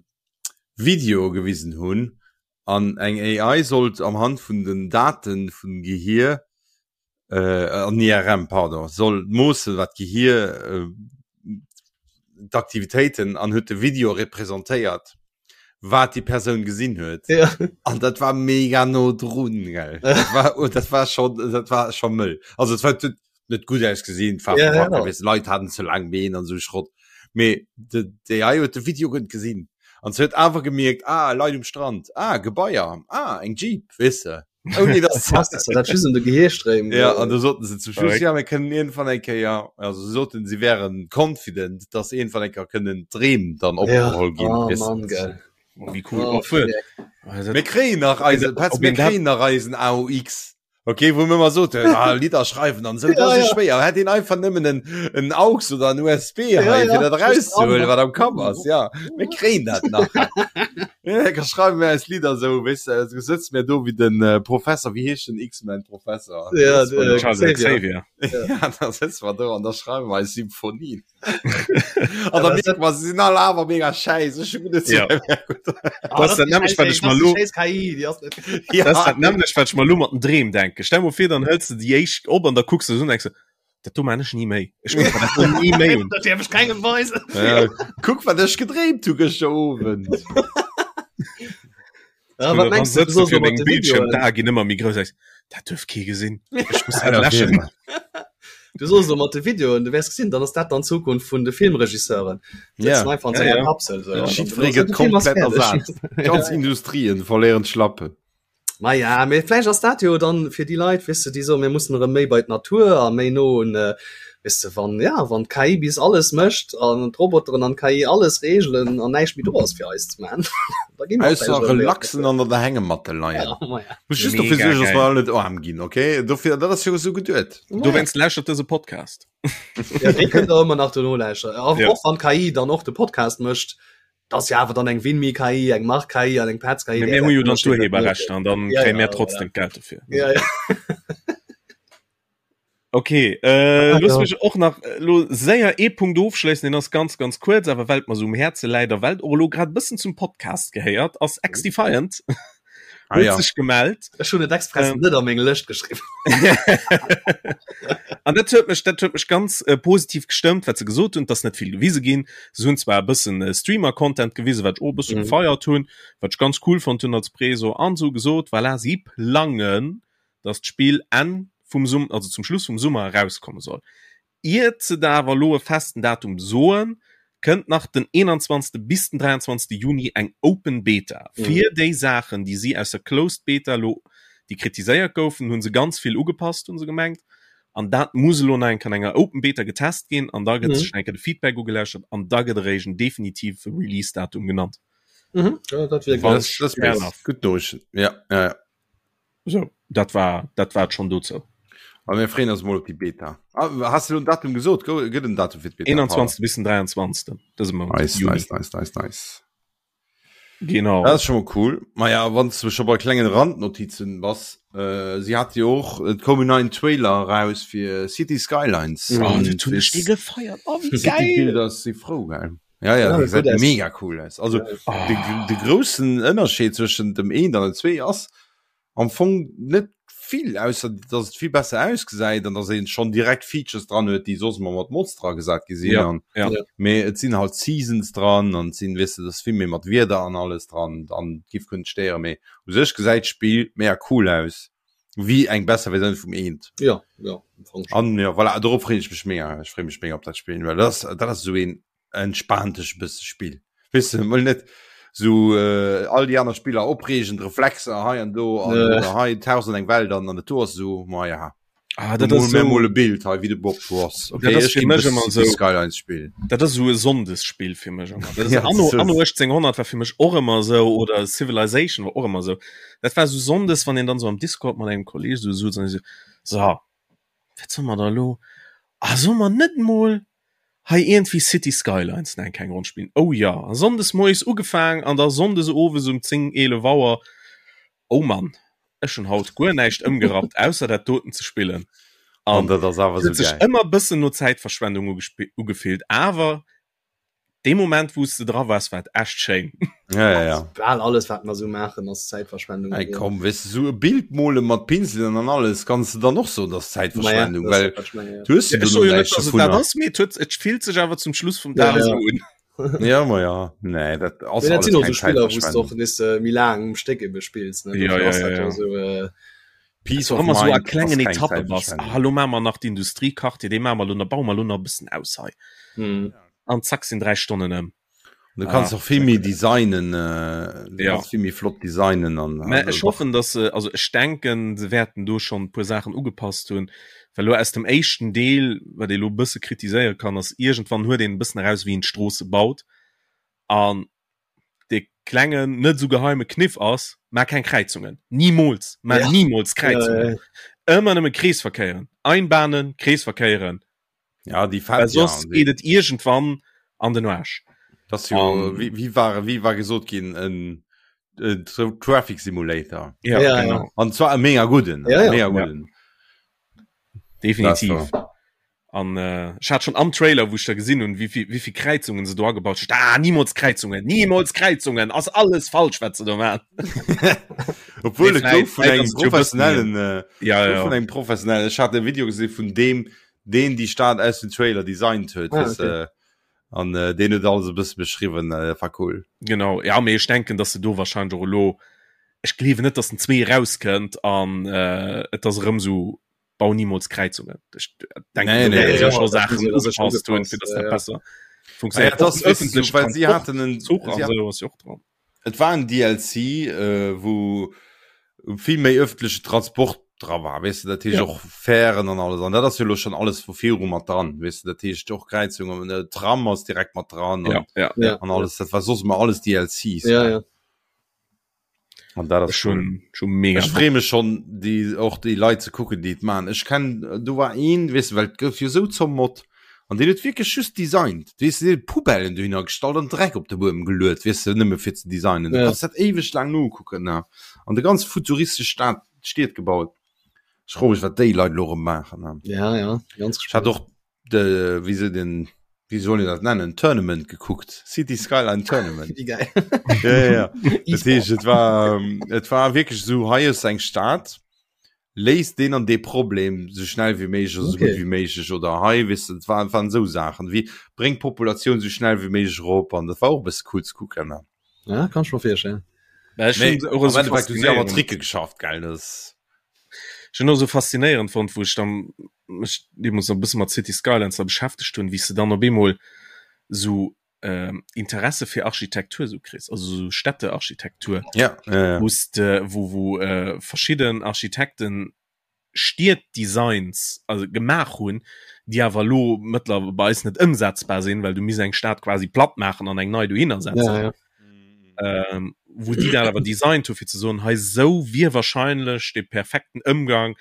Videoe gewisen hunn an eng AI sollt am Hand vun den Daten vum Gehier äh, an IRM pardon soll moossen wat d'Gehier äh, d'Aktivitéiten an huet de Video representéiert wat déi Persoun gesinn huet ja. an dat war mega no drun gell dat war oh, dat war schon dat war schon mëll also et war net gut ausgesinn war ja, ja, ja. Leit hatten ze lang Been an so Schrott mee de d'AI huet de Video gutt gesinn an se huet awer gemierkt ah Leit um Strand ah Gebaier ah eng Jeep weess de Ouni dass Krass, dass dat just un de Gehirstréim Ja, an da soten se zum Schluss, ja, mir kënnen iergendwann eng Kéier, also se soten, si wären confident, dass iergendwann eng Kéier kënnen d'Dreem dann opgeholl ginn. Oh weess de. Mann, geil. Oh, wéi cool. Oh, Oh, fuer. fuck. Mir kréien nach eisen, Petz, Ob mir een dat- kréien nach eisen AUX. Okay, wou mir ëmmer soten, ah, Lidder schreiwen an esou, dat Ja, ass esou ja. schwéier. Hätt een einfach nëmmen en, en AUX oder en USB Ja, hei, ja. fir dat erauszehuelen, wat am Kapp ass. Ja, mir kréien dat nach. Ja, da schreiwen mir eis Lidder esou, weess de, esou sëtze mir do wéi den äh, Professor, wéi heescht den X-Men-Professor? Ja, Das war de- Charles Xavier. Xavier. Ja, da sëtze mer do an da schreiwen wir eis Symphonien. An da Ja, mierke mer, se sinn all awer mega schäiss. Ech hu net Ja. Ah, Das ist dat nämlech, wat ech mer lo- Scheiß KI, déi ass net. Ja. Das ist dat nämlech, wat ech mer lo mat den Dreem denken. Stell mer vir, dann hëls de déi éischt op an da kucks de se un an denks de, Dat do man ech ni méi. Ech kuck mer dat do ni méi un. Dat däerf ech kengem weisen. Ja, kuck, wat ech gedreemt hu gëschter Owend. Ja, wat mengst du, du soss fir mat dengem de Bildschirm Videoen? d'Ae ginn ëmmer méi grouss. Dat duerf kee gesinn. Ech muss dat Ja, läschen. Du soss elo mat de Videoen, du wäers gesinn, dann ass dat dann d'Zukunft vun de Filmregisseuren. Ja. Sëtzen einfach an Ja, senger ja. Kapsel. So. Ja. An dann Jiddweree de gëtt Film ass komplett fäerdeg. ersat. Ganz Industrien verléieren d'Schlappen. Ma ja, mee vläicht ass dat jo dann fir déi Leit, weess de, déi soen, mir mussen erëm méi bei d'Natur a méi no un, weess de, wann, ja, wann d'KI bis alles mécht an d'Roboteren an d'KI alles reegelen an näischt méi do ass fir eis ze man, da gi mer Ausser vläicht erëm méi op relaxen d'Natur. an der Hängematte leien. Ja, ma ja. Muss just dofir Mega suergen, dass geil. mer all net aarm ginn, okay? Dofir, dat ass jo esou geduet. Ma ja. Dowéinst lauschtert dëse Podcast. Ja, dee kënnt der ëmmer nach dono lauschteren. Och, Ja. och wann d'KI dann och de Podcast mécht, Dat ass jo awer dann eng Winmi KI, eng Marc KI an eng Petz KI. Mee mir hu jo dann d'Urheberrechter an dann Ja, kréie ja, mir trotzdem d'Geld dofir. Ja, ja. Okay, äh, Ah, looss ja. mech och nach äh, lo séier ee Punkt ofschléissen, deen ass ganz, ganz kuerz, awer well et mer sou um Häerze läit a well et och elo grad e bëssen zum Podcast gehéiert, ass XDefiant Ah, huet ja. sech gemellt. Ech hunn et express Ähm. net a meng Lëscht geschriwwen. An dat huet mech, dat huet mech ganz äh, positiv gestëmmt, wat se gesot hunn, dass net vill gewise ginn. Se hunn zwar e bëssen äh, Streamer-Content gewisen, wat ech och e bësse Mhm. gefeiert hunn, wat ech ganz cool fonnt hunn als Preso, an se hu gesot, voilà, si plangen, dass d'Spill Enn vum Summer, also zum Schluss vum Summer erauskomme soll. Iert se da awer elo e festen Datum soen, kënnt nach den 21. bis den 23. Juni eng Open Beta fir déi Saachen, déi si aus der Closed Beta elo, déi kritiséiert goufen, hu se ganz vill ugepasst, hu se gemengt. An dat muss elo nach eng Kéier an enger Open Beta getest ginn an da gëtt sech nach eng Kéier de Feedback ugelauschtert an da gëtt eréischt en definitive Release-Datum genannt. Mhm. Ja, dat wier Das, ganz das Fair ass enough. gutt Noriichten. Ja, ja, ja. So, dat war dat war schon dozou. A mir freeën eis mol op déi Beta. Ah, has du lo en Datum gesot? Go- Gëtt en Datum fir d'Beta? 21. bis den 23. dëse Mount. Nice, Juni. nice, nice, nice, nice. Genau. Dat ass schon mal cool. Ma ja, wann du schon bei klengen Randnotizen bass, äh, sie hat jo och, et koum en neien Trailer raus fir City Skylines. Oh, An dat hunn ech fir dee gefeiert. Oh, wéi City geil! Builders si frou, gell? Ja, ja, Ja, déi gutt gesäit aus. mega cool aus. Also, Oh. de, de groussen Ënnerscheed zwëschen dem eent an dem zwee ass am Fong net vill, ausser dass et vill besser ausgesäit an dass een schon direkt Features dran huet, déi soss ëmmer mat Mods dra gesat gi sinn. Ja, An, ja. Ja. mee et sinn halt Seasons dran an et sinn, weess de, et ass vill méi mat Wieder an alles dran an giff kënnt stéieren, mee u sech gesäit d'Spill mega cool aus, wéi eng besser Versioun vum eent. Ja, ja, am Fong schon. An ja, voilà, dorop freeën ech mech mega. Ech freeë mech mega op dat Spill, well dat ass, dat ass esou een entspaant ech bësse Spill. Weess de, mol net sou äh, all déi aner Spiller opreegend Reflexer hei an do an Ja. oder hei 1000 eng Welt an an dat do ass esou, ma ja. Ah, dat Mol ass mir so, mol e Bild hei wéi de Bob Ross. Okay, Dat ass ech fir ginn mech dës ëmmer City sou- Skylines spillen. dat ass sou e Sonndesspill fir mech ëmmer. Dat ass Ja, Anno, das ist- Anno 1800 war fir mech och ëmmer sou oder Civilization war och ëmmer sou. Dat war sou Sonndes, wann een dann sou am Discord mat engem Kolleg sou souz an sou, so, wat solle mer da lo? Ah, solle mer net mol hei iergendwéi City Skylines nach eng kleng Ronn spillen? Oh ja, a Sonndes moies ugefaang an da Sonndes owes um 10, 11 Auer, oh Mann, ech hunn haut guer näischt ëmgerappt, ausser dat doten ze spillen. An An dat ass awer et sou huet sech geil. ëmmer bëssen no Zäitverschwendung ugefillt, awer. Dee Moment wou s de dra waars, war et echt schéin. Ja, ja, ja. Bal alles wat mer sou maachen ass Zäitverschwendung. Ey, komm, weess de, sou e Bild mole mat Pinselen an alles kanns de dann och soen, dat ass Zäitverschwendung, Maja, well dat ass ja. du hues jo Ja, ech dono soe jo net, näischt dass et dat dovunner. ass, mee et huet, et fillt sech awer zum Schluss vum Ja, Dag ja. esou un. Ja, ma ja, nee, dat ass Mee dat alles sinn och keng sou Spiller, wou s de Zäitverschwendung. och nees äh, méi laang um Stéck ebe spills, ne? Ja, Dofir ja, ass ja, dat jo ja. sou äh, Peace Dass of du ëmmer sou a Mind ass klengen keng Etappe bass. Zäitverschwendung. Ah, lo maache mer nach d'Industriequartier, dee maache mer lo nach, baue mer lo nach e bëssen aus hei. hm. An zack sinn 3 Stonnen ëm. Du kannst Ah, och vill méi designen, äh, du Ja. kannst vill méi flott designen an Mä also ech doch. hoffen, dass se, also ech denken, se wäerten do schonn e puer Saachen ugepasst hunn, well elo aus dem éischten Deel, wat ee lo e bësse kritiséiere kann, ass iergendwann huet een e bëssen eraus, wéi een d'Stroosse baut an dee klengen, net esou geheime Kniff ass, Maach keng Kräizungen, nimools, maach Ja. nimools Ja, Kräizungen, ja, ja. ëmmer nëmme Kreesverkéieren, Einbahnen, Kreesverkéieren, Ja, déi well fett, ja, soss déi. geet et iergendwann an den Aarsch. Das jo, An wie, wie war, wie war gesot ginn, en, en Traffic Simulator. Ja, Ja, ja. genau. An zwar e mega gudden, Ja, e ja. mega Ja. gudden. Definitiv. Das war. An äh, ech hat schon am Trailer, wou ech da gesinn hunn, wéi vill, wéi vill Kräizungen se do agebaut hunn. Ah, nimools Kräizungen, nimools Kräizungen, ass alles falsch, wat se do maachen. Obwohl Mee et gouf vläit, vun vläit engem ass et jo e bëssen méi. professionellen, äh, Ja, gouf ja. vun engem professionellen, ech hat e Video gesinn vun deem, deen déi Stad aus dem Trailer designt huet, Ah, weess okay. de, an äh, deen huet alles e bësse beschriwwen, äh, war cool. Genau, ja, mee ech denken, dass se do wahrscheinlech och elo, ech gleewen net, dass den 2 erauskënnt an äh, et ass erëm sou, bau nimools Kräizungen. Ech denken, Nee, do nee, wäerte nee. se scho Ja, dat Saachen hu se da sécher ugepasst hunn, fir ugepasst, dass ja, dat ja. besser Ah ja, funktionéiert. dat Och ass, den weess du, öffentlechen well si Transport, haten en, Zuch si an haten sou ass jo och dran. Et war en DLC, äh, wou vill méi öffentliche Transport dra war, weess de, dat heescht Ja. och Fähren an alles. An dat ass jo lo schon alles vu viru mat dran, weess de, dat heescht och Kräizungen, äh, Tram ass direkt mat dran Ja, an, ja. Ja, an alles. Dat war soss ëmmer alles DLCs. ja, ja. An dat ass Ech cool. hunn schon mega Ech freeë mech schon, déi, och déi Leit ze kucken, déi et maachen. Ech kenn, do war een, weess de, well et gouf jo sou zommot, an deen huet wierklech just designt, weess de, deen huet Poubellen dohinner gestallt an Dreck op de Buedem geluet, weess de, nëmme fir ze designen. Du Ja. kanns dat éiweg laang nokucken, ne? An de ganz futuristesch Stad, Stied gebaut. Ech froe mech, wat déi Leit elo erëm maachen, ne? Ja, ja, ganz Ech hat gespannt. och de, wéi se den, wéi soll een dat nennen, Tournament gekuckt, City Skyline Tournament. Wéi geil. Ja, ja, ja. Dat E-Sport. heescht, et war, et war wierklech esou, hei ass eng Stad, léist deen an dee Problem sou schnell wéi méiglech oder sou gutt Okay. wéi méiglech oder hei, weess de, et waren, waren esou Saachen wéi, bréng d'Populatioun sou schnell wéi méiglech erop an dat war och e bësse cool ze kucken. Ne? Ja, kann ech mer virstellen. Mä ech Mee hunn se och am esou Endeffekt hu si awer faszinéierend. Tricke geschafft, gell, dat Ech hunn och esou faszinéierend fonnt, wou ech dann mech deemools nach e bësse mat City Skylines da beschäftegt hunn, wéi s de dann op eemol esou Interesse fir Architektur esou kriss, also esou Städtearchitektur, Ja, ja, ja. wou s de, wou, wou verschidden Architekten Stieddesigns also gemaach hunn, déi awer elo mëttler bei eis net ëmsetzbar sinn, well du misst eng Stad quasi platt maachen an eng nei dohinner setzen. Ja, ja. Ähm, wou déi dat awer designt hu fir ze soen, hei esou wier wahrscheinlech de perfekten Ëmgang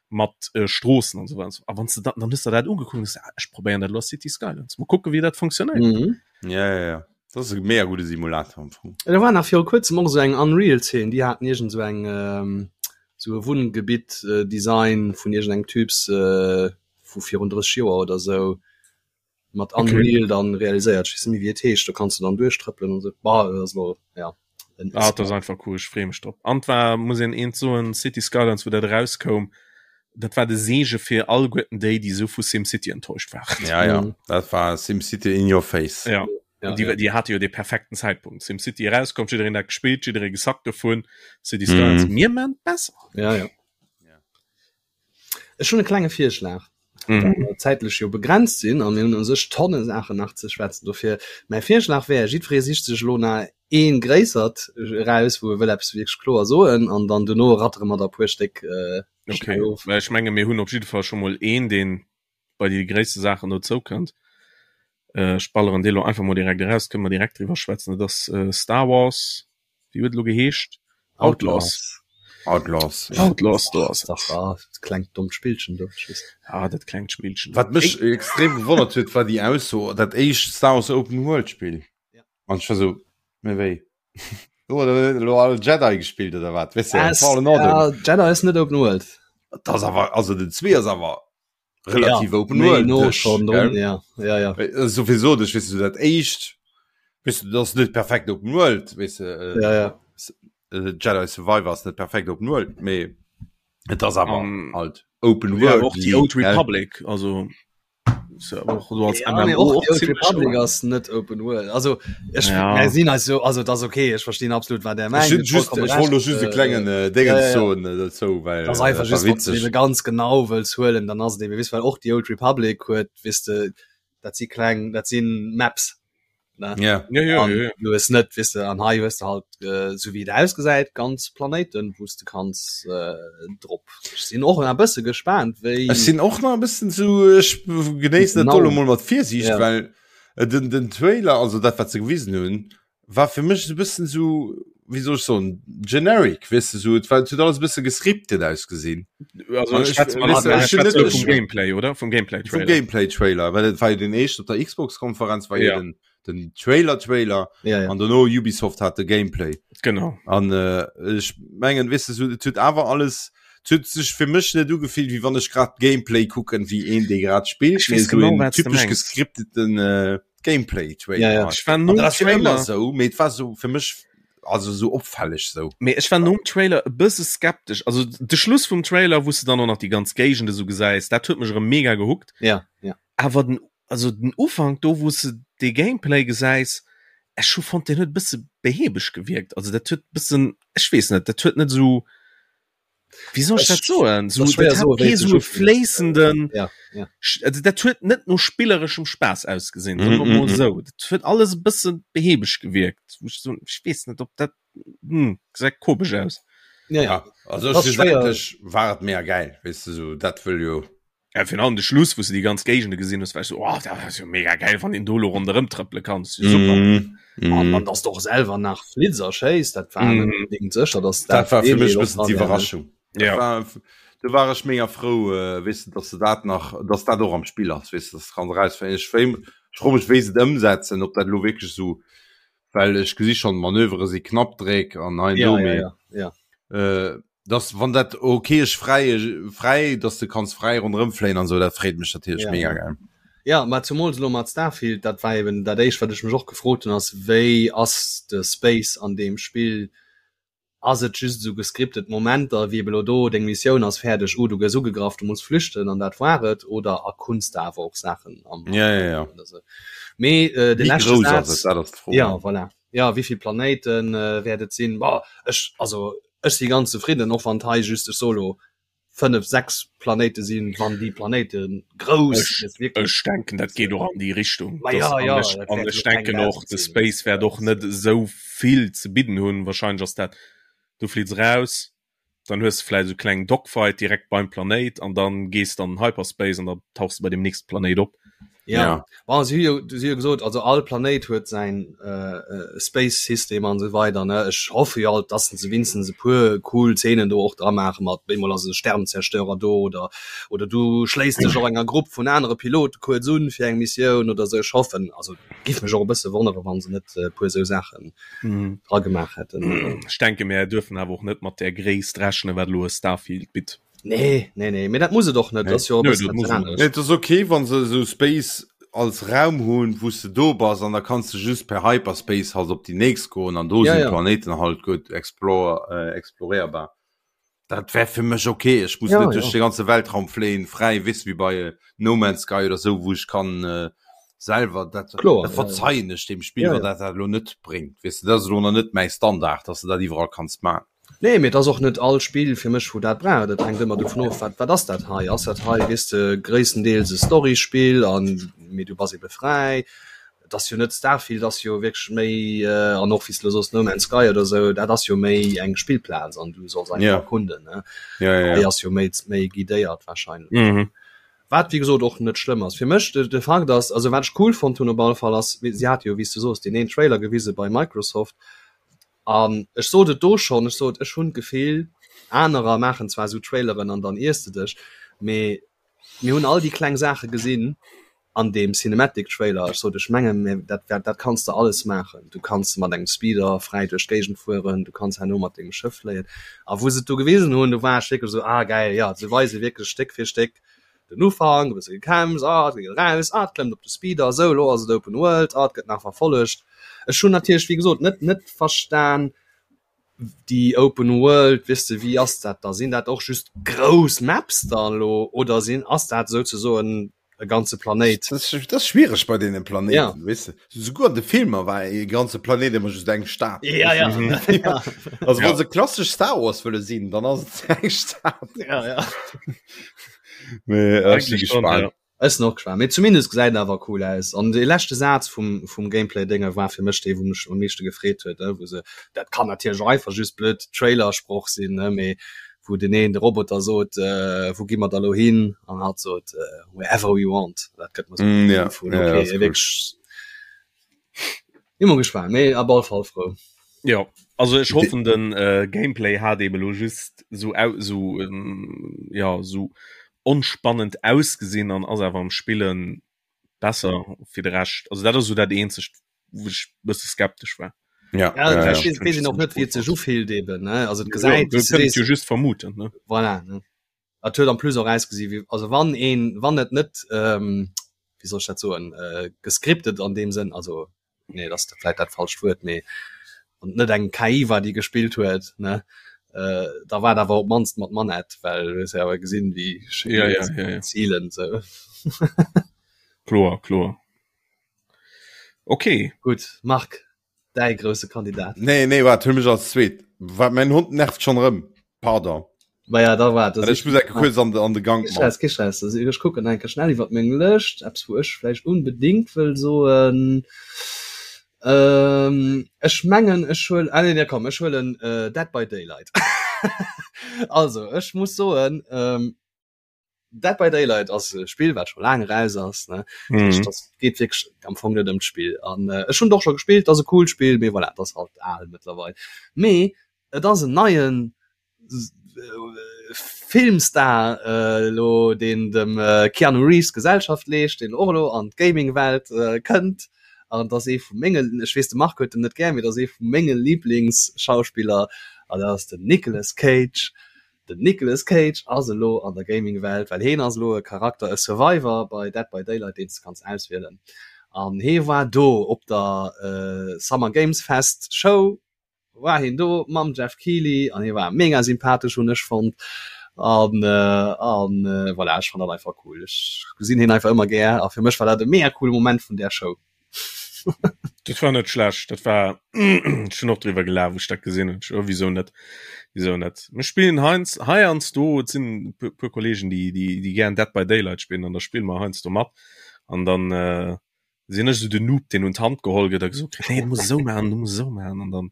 mat äh, Stroossen an esou weider. A wann s de dat, dann hues de dat ugekuckt und hues, ah, ech probéieren dat elo a City Skylines. Mol kucke wéi dat funktionéiert. Mhm. Ja, ja, ja. Dat ass e mega gudde Simulator am Fong. Da war nach viru kuerzem och esou eng Unreal-Zeen, déi haten iergend esou eng ähm, esou e Wunngebitt äh, Design vun iergendengem Typs äh, vu virun 30 Joer oder esou mat Okay. Unreal dann realiséiert. Ech weess net méi wéi et heescht, do kanns du dann duerchtrëppelen an esou. Bah, dat ass elo ja en Ah, dat ass einfach cool, ech freeë mech drop. An war, muss een eent soen, City Skylines, wou dat erauskoum, dat war de Seege fir alleguerten déi, déi esou vu SimCity enttäuscht waren. Ja, ja, Mhm. dat war SimCity in your face. Ja. Ja, Déi, ja. déi hate jo de perfekten Zäitpunkt. SimCity erauskomm, jiddereen dat gespillt, jidderee gesackt dovun. City Skylines, Mhm. mir maan et besser. Ja, ja. Ja. Ech hunn e klenge Virschlag. Mhm. Well mer zäitlech jo begrenzt sinn a mir hunn u sech Tonne Saachen nach ze schwätzen. Dofir mäi Virschlag wär, jiddweree sicht sech elo nach ee gréissert eraus, wou e wëll eppes wierklech kloer soen an dann dono rattere mer der e puer Stéck Okay, schnell of. well ech menge mir hunn op jidde Fall scho mol een, deen bei déi gréisste Saachen dozou kënnt. Ech balleren dee lo einfach mol direkt eraus, kënne mer direkt driwwer schwätzen. Dat ass Star Wars, wéi huet e lo geheescht? Outlaws. Outlaws. Outlaws, do ass et. Ah, dat klengt dommt Spillchen do. Ah, dat klengt Spillchen. Wat mech extrem gewonnert huet, war déi Ausso, dat éischt Star Wars Open World Spill. An ech war sou, mä wéi? Huet elo all Jedi gespillt oder wat? Weess de, Fallen Order. Ja, Jedi ass net Open World. Dat ass awer, also den 2 ass awer relativ ja, open world no schon drin, ja ja ja sowieso das weißt du dat echt. Weess du, dat ass net perfekt Open World, weess de, äh, ja, ja. Äh, Jedi Survivor ass net perfekt Open World, mee et ass awer um, halt Open ja, World. Och déi Old Republic, also ja, nee, och die Old Republic ass net Open World. Also ech ja. sinn also also das okay, ech verstinn absolut wat der mengt. Just, ech wollt just e klengen äh, Ding ja, ja. soen äh, dozou, well das einfach just, witzeg. ganz genau wëlls huelen, dann ass et eben wis well och die Old Republic huet wis de dat si kleng dat sinn Maps ne? Ja. Ja, ja, An ja, ja. du hues net wis de an hei hues de halt äh, sou wéi et ausgesäit ganz Planéiten wous de kanns äh, drop. Ech sinn och e bësse gespaant wéi Ech sinn och nach e bëssen zu ech genéissen dat Genau. do lo mol mat Virsiicht, Ja. well äh, den, den Trailer, also dat wat se gewisen hunn, war fir mech esou e bëssen esou, wéi soll ech soen, generic, weess de, esou, et war, et huet alles e bësse gescriptet ausgesinn. Also An ech, schwätze mer weess de, ech hunn schwätze net, vum Gameplay, oder? Vum vum Gameplay-Trailer. Gameplay-Trailer, well et war jo den éischten op der Xbox-Konferenz, war jo Ja. den, den Trailer-Trailer ja, ja. an dono Ubisoft hat de Gameplay. Genau. An äh, ech mengen, weess de, esou, et huet awer alles, et huet sech fir mech net ugefillt, wéi wann ech grad Gameplay kucken, wéi een, dee grad spillt, Ech mee weess esou genau, een wat s de typesch mengs. gescripteten äh, Gameplay Trailer. Ja, ja. Ech war An nom dat ass jo ëmmer Trailer sou, mee et war sou fir mech also sou opfälleg sou. Mee ech war nom Trailer e bësse skeptesch. Also de Schluss vum Trailer, wou s de dann och nach déi ganz Géigend esou gesäis, dat huet mech erëm mega gehookt. Ja, ja. Awer den, also den Ufank do, wou s de dee Gameplay gesäis, ech hu fonnt, deen huet e bësse behäbeg gewierkt. Also dat huet e bëssen, ech weess net, dat huet net esou Wéi soll ech dat soen? So, dat hat kee sou e fléissenden ja, ja. Also, dat huet net no spillereschem Spaass ausgesinn, mm, mm, mm. sou. Dat huet alles e bëssen behäbeg gewierkt. Ech so, ech weess net, ob dat hm, gesäit komesch aus. Ja, ja. Also schlussendlech war et mega geil, weess de, sou dat wëll jo. Ja, virun allem de Schluss, wou s de déi ganz Géigende gesinn hues, war ech so, oh, dat ass jo mega geil, wann een do lo ronderëm trëppele kann. Das ist jo super. Mm, mm. An dann, dass du och selwer nach Flitzer schéiss, dat war net Mm. unbedingt sécher, dass Dat war fir deen mech Deel e och bëssen dran wär, ne? d'Iwwerraschung. Dat Ja. war, do war ech mega frou, äh, weess de, dass se dat nach, dass dat och am Spill ass, weess de, dass du kanns erausfannen. Ech wéi, ech fro mech, wéi se et ëmsetzen, ob dat elo wierklech esou, well ech gesi schonn, d'Manövere si Knappdréck an hei an Ja, do, ja, mee ja, ja. äh, dass wann dat okay ech fräi fräi dass du kanns fräi ronderëm fléien an sou dat freet mech natierlech Ja. mega geil. Ja, mä zumools elo mat Starfield, dat war eben dat éischt wat ech mech och gefrot hunn, ass wéi ass de Space an deem Spill? Ass et just esou gescriptet Momenter wéi eben elo do, deng Missioun ass fäerdeg, oh du gëss ugegraff, du muss flüchten an dat war et, oder erkunns de awer och Saachen am Ja, ja, ja. oder sou? Mee äh, de Wéi leschte grouss ass Saz, et, dat ass d'Fro. ja voilà, ja wéivill Planéiten äh, wäert et sinn? Boah, ech also Ech si ganz zefridden, och wann et hei just, ech soe lo, 5, 6 Planéite sinn, wann déi Planéite grouss Ech, sinn, wierklech. ech denken, dat geet och an déi Richtung. Ma Dass, ja, an ja, ech, dat an wäert ech jo keng denken och, 1.000 de sinn. Space wäert och net esou vill ze bidden hunn. Wahrscheinlech ass dat, du fliits eraus, dann hues de vläicht esou e klengen Dogfight direkt beim Planéit an dann gees de an den Hyperspace an da tauchs de bei deem nächste Planéit op. Ja, Ja. bon, si hu jo, si hu jo gesot, also all Planéit huet säin äh, Space System an esou weider, ne. Ech hoffe jo alt, dass se winstens e puer cool Zeenen do och dra maache mat bemol ass e Sternzerstörer do oder oder du schléiss dech och enger Grupp vun anere Pilote kuerz un fir eng Missioun oder esou. Ech hoffen, also giff mech och e bësse wonnere wann se net e puer esou Saachen dra gemaach hätten. Ech denke mär duerfen awer och net mat där Gréisst rechnen, wat elo e Starfield bitt. Nee, nee, nee, mee dat muss et och net. Nee. Dat ass jo e Nö, bëssen dat eppes muss et aneres. Nee, et ass okay, wann se esou Space als Raum hunn, wou s de do bass an da kanns de just per Hyperspace halt op déi nächst goen an do Ja, sinn ja. d'Planéiten halt gutt explore, äh, exploréierbar. Dat wär fir mech okay. Ech muss Ja, net duerch ja. de ganze Weltraum fléien, fräi, weess wéi bei äh, No Man's Sky oder sou, wou ech kann äh, selwer dat, Kloer, dat ja, ja. verzeien ech dem Spill, Ja, wann ja. dat dat elo net bréngt. Weess de, dat ass elo nach net mäi Standard, dass de dat iwwerall kanns man. Nee, mee et ass och net all Spill fir mech wou dat brauch. Dat hänkt ëmmer dovun of, wat wat ass dat hei? Ass dat hei, weess de, gréisstendeels e Storyspill an mee du bass ebe fräi. Et ass jo net Starfield ass jo wierklech méi an och wéi s de elo soos No Man's Sky oder esou, dat ass jo méi eng Spillplaz an du solls einfach Ja. erkunden, ne? Ja, ja, Hei ja. ass jo méi méi guidéiert wahrscheinlech. Mhm. Wat wéi gesot och net schlëmm ass. Fir mech de de Fakt ass, also wat ech cool fonnt hunn op alle Fall ass, si hate jo wéi s de soos deen een Trailer gewise bei Microsoft, An ech sot et do schonn, ech sot, ech hunn d'Gefill, anerer maachen zwar esou Traileren an dann iers de dech, mee mir hunn all déi kleng Saache gesinn an deem Cinematic Trailer. Ech sot, ech mengen, mir, dat, dat, dat kanns de alles maachen. Du kanns mat engem Speeder fräi duerch d'Géigend fueren, du kanns herno mat dengem Schëff fléien. A wou se et do gewisen hunn, do war ech wierklech esou, ah gäil, jo, se weise wierklech Stéck fir Stéck den Ufank, e bësse gekämpft, ah, et geet eraus, ah, et klëmmt op de Speeder, esou, elo ass et Open World, ah, et gëtt nach verfollegt. Ech hunn natierlech wéi gesot net net verstan déi Open World, weess de wéi ass dat da? Sinn dat och just grouss Maps da lo oder sinn ass dat souzesoen e ganze Planéit? Dat ass, dat ass schwiereg bei deene Planéiten, ja. weess de. Souguer an de Filmer war e ganze Planéit ëmmer just eng Stad. Ja, ja. ja. Also ja. wann se klassesch Star Wars wëlle sinn, dann ass et eng Stad. Ja, ja. Mee ech si gespaant. Ja. Ech sinn och gespaant. Mee zumindest gesäit en awer cool aus. An dee leschte Saz vum, vum Gameplay-Dénge war fir mech dee, wou mech am meeschte gefreet huet, wou se, dat kann natierlech och einfach just blöd Trailer-Sproch sinn, ne, mee wou den een de Roboter sot, äh, wou gi mer da lo hin? An hatt sot, äh, wherever we want. Dat gëtt mer so mm, ja. vun, okay, ja, cool. wierklech Immer gespannt, mee op alle Fall frou. Ja, also ech hoffen den äh, Gameplay hat eben lo just so au so ähm, ja so onspannend ausgesinn an ass awer am Spillen besser fir de Rescht. Also dat ass so dat eenzegt wou ech bësse skeptesch war. Ja, ja, ja, ja. ja. wees och net wie et sech ufillt eben ne also et gesäit ja, jo just vermuten ne voilà, ne Et huet en plus och ausgesi wéi also wann een wann et net ähm, wéi soll ech dat soen äh, gescriptet an deem Sënn also nee dat ass vläit dat falscht Wuert mee wann et net eng KI war déi gespillt huet ne äh, da war et awer op d'mannst mat Manett well du hues jo awer gesinn wéi schéin ja, ja, ja, ja. zielen sou. Kloer, kloer. Okay. Gutt Marc, däi grousse Kandidat. Nee, nee, waart, huel mech als zweet. Wat, mäin Hond nervt schonn erëm. Pardon. Ma ja, da waart. Ech muss enke kuerz an de, an de Gank man. Kee Stress, kee Stress. Also ech kucken enke schnell iwwer meng Lëscht, eppes wou ech vläicht unbedingt wëll soen. Ähm, ech mengen ech huel, ah nee, nee, komm, ech huelen äh, Dead by Daylight. Also, ech muss soen, ähm, Dead by Daylight ass e Spill wat scho laang eraus ass ne mhm. das geet wierklech am Fong net ëm d'Spill an äh, ech hunn doch scho gespillt ass e cool Spill mee voilà, dat ass halt al mëttlerweil mee et ass en neien äh, Filmstar äh, lo deen dem äh, Keanu Reeves Gesellschaft leescht deen och lo an d'Gaming-Welt äh, kënnt an dat ass ee vu mengen ech weess de Marc huet en net gär mee dat ass ee vu menge Lieblingsschauspiller an dat ass den Nicolas Cage Den Nicolas Cage ass elo an der Gaming-Welt, well heen ass elo e Charakter, e Survivor bei Dead by Daylight, deen s de kanns auswielen. An hee war do op der Summer Games Fest Show, war heen do mam Geoff Keighley an hee war mega sympathesch, hunn ech fonnt. An an voilà, ech fann dat einfach cool. Ech gesinn heen einfach ëmmer gär a fir mech war dat e mega coole Moment vun där Show. Dat war net schlecht, dat war ech hunn och driwwer gelaacht, wou ech dat gesinn hunn. Oh, wieso net? Wieso net? Mir spillen heians heiansdo, et sinn e puer, puer Kollegen, déi, déi, déi gären Dead by Daylight spillen an da spille mer heiansdo mat an dann äh, sinn ech esou den Noob, deen un d'Hand geholl gëtt a gesot kritt, nee, du muss esou maachen, du muss esou maachen an dann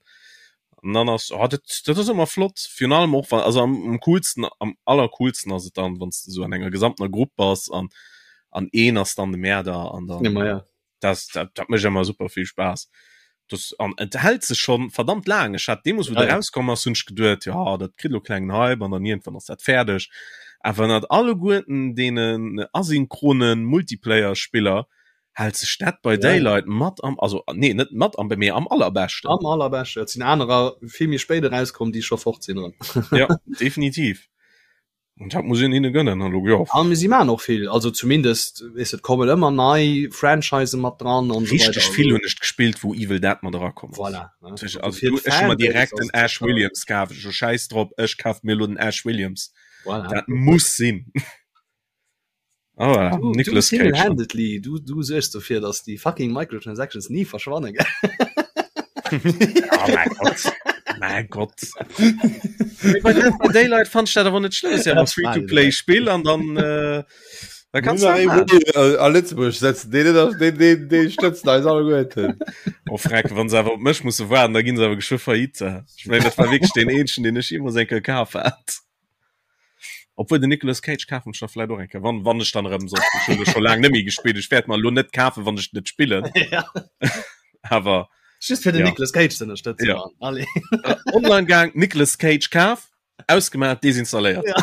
an dann ass oh, dat, dat ass ëmmer flott, virun allem och wann, also am, am coolsten, am allercoolsten ass et dann, wann s de esou an enger gesamtener Grupp bass an an een ass dann de Mäerder an dann Ja, ma ja. das, dat, dat mécht ëmmer super vill Spaass. Das, an et hält sech schon verdammt laang. Ech hat deemools, wou Ja, de ja. rauskomm ass, hunn ech geduet, ja, dat kritt lo klengen Hype an dann iergendwann ass dat fäerdeg. Awer ënnert alleguerten deenen asynchronen Multiplayer-Spiller hält sech Dead by Ja. Daylight mat am, also nee, net mat am, mee am allerbeschten. Am allerbeschten. Et sinn anerer vill méi spéit erauskomm, déi scho fort sinn erëm. Ja, definitiv. Und dat muss een hinne gönnen an lo jo. An si maan och vill, also zumindest weess et kommen ëmmer nei Franchisen mat dran an esou weider. Richteg vill hunn ech gespillt wou Evil Dead mat erakomm ass. Voilà, ne? Also Also fir du, ech hu mer d'Fanbase direkt ass den et Ash sécher. Williams kaf, ech hu schäiss drop, ech kaf mir elo den Ash Williams. Voilà. Dat muss sinn. Ah voilà, Du, du Nicolas Cage. single-handedly, du, du suergs dofir, dass déi fucking Microtransactions ni verschwannen, gell? Oh mein Gott. Mein Gott. Mee bei Dead by Daylight fand ich dat awer net schlëmm. Ist ja Ja, awer Free-to-Play-Spill an dann äh, da kannst du dat maachen. A Lëtzebuerg setzen deen net, deen, deen, deen stëtzen eis alleguerten. Oh freck, wann se awer op mech musse waarden, da ginn se awer geschwë faillite. Ech mengen, dat war wierklech deen eenzegen, deen ech jeemools eng Kéier kaf hat. Obwuel den Nicolas Cage kafen ech da vläit och eng Kéier, wann, wann ech dann erëm soll. Ech hunn e scho laang net méi gespillt. Ech wäert mer elo net kafen, wann ech net spillen. Ja. Awer Just fir den Ja. Nicolas Cage ze ënnerstëtzen. Ja. Mann. Allez. online gaang, Nicolas Cage kaf, ausgemaach, desinstalléiert. Ja.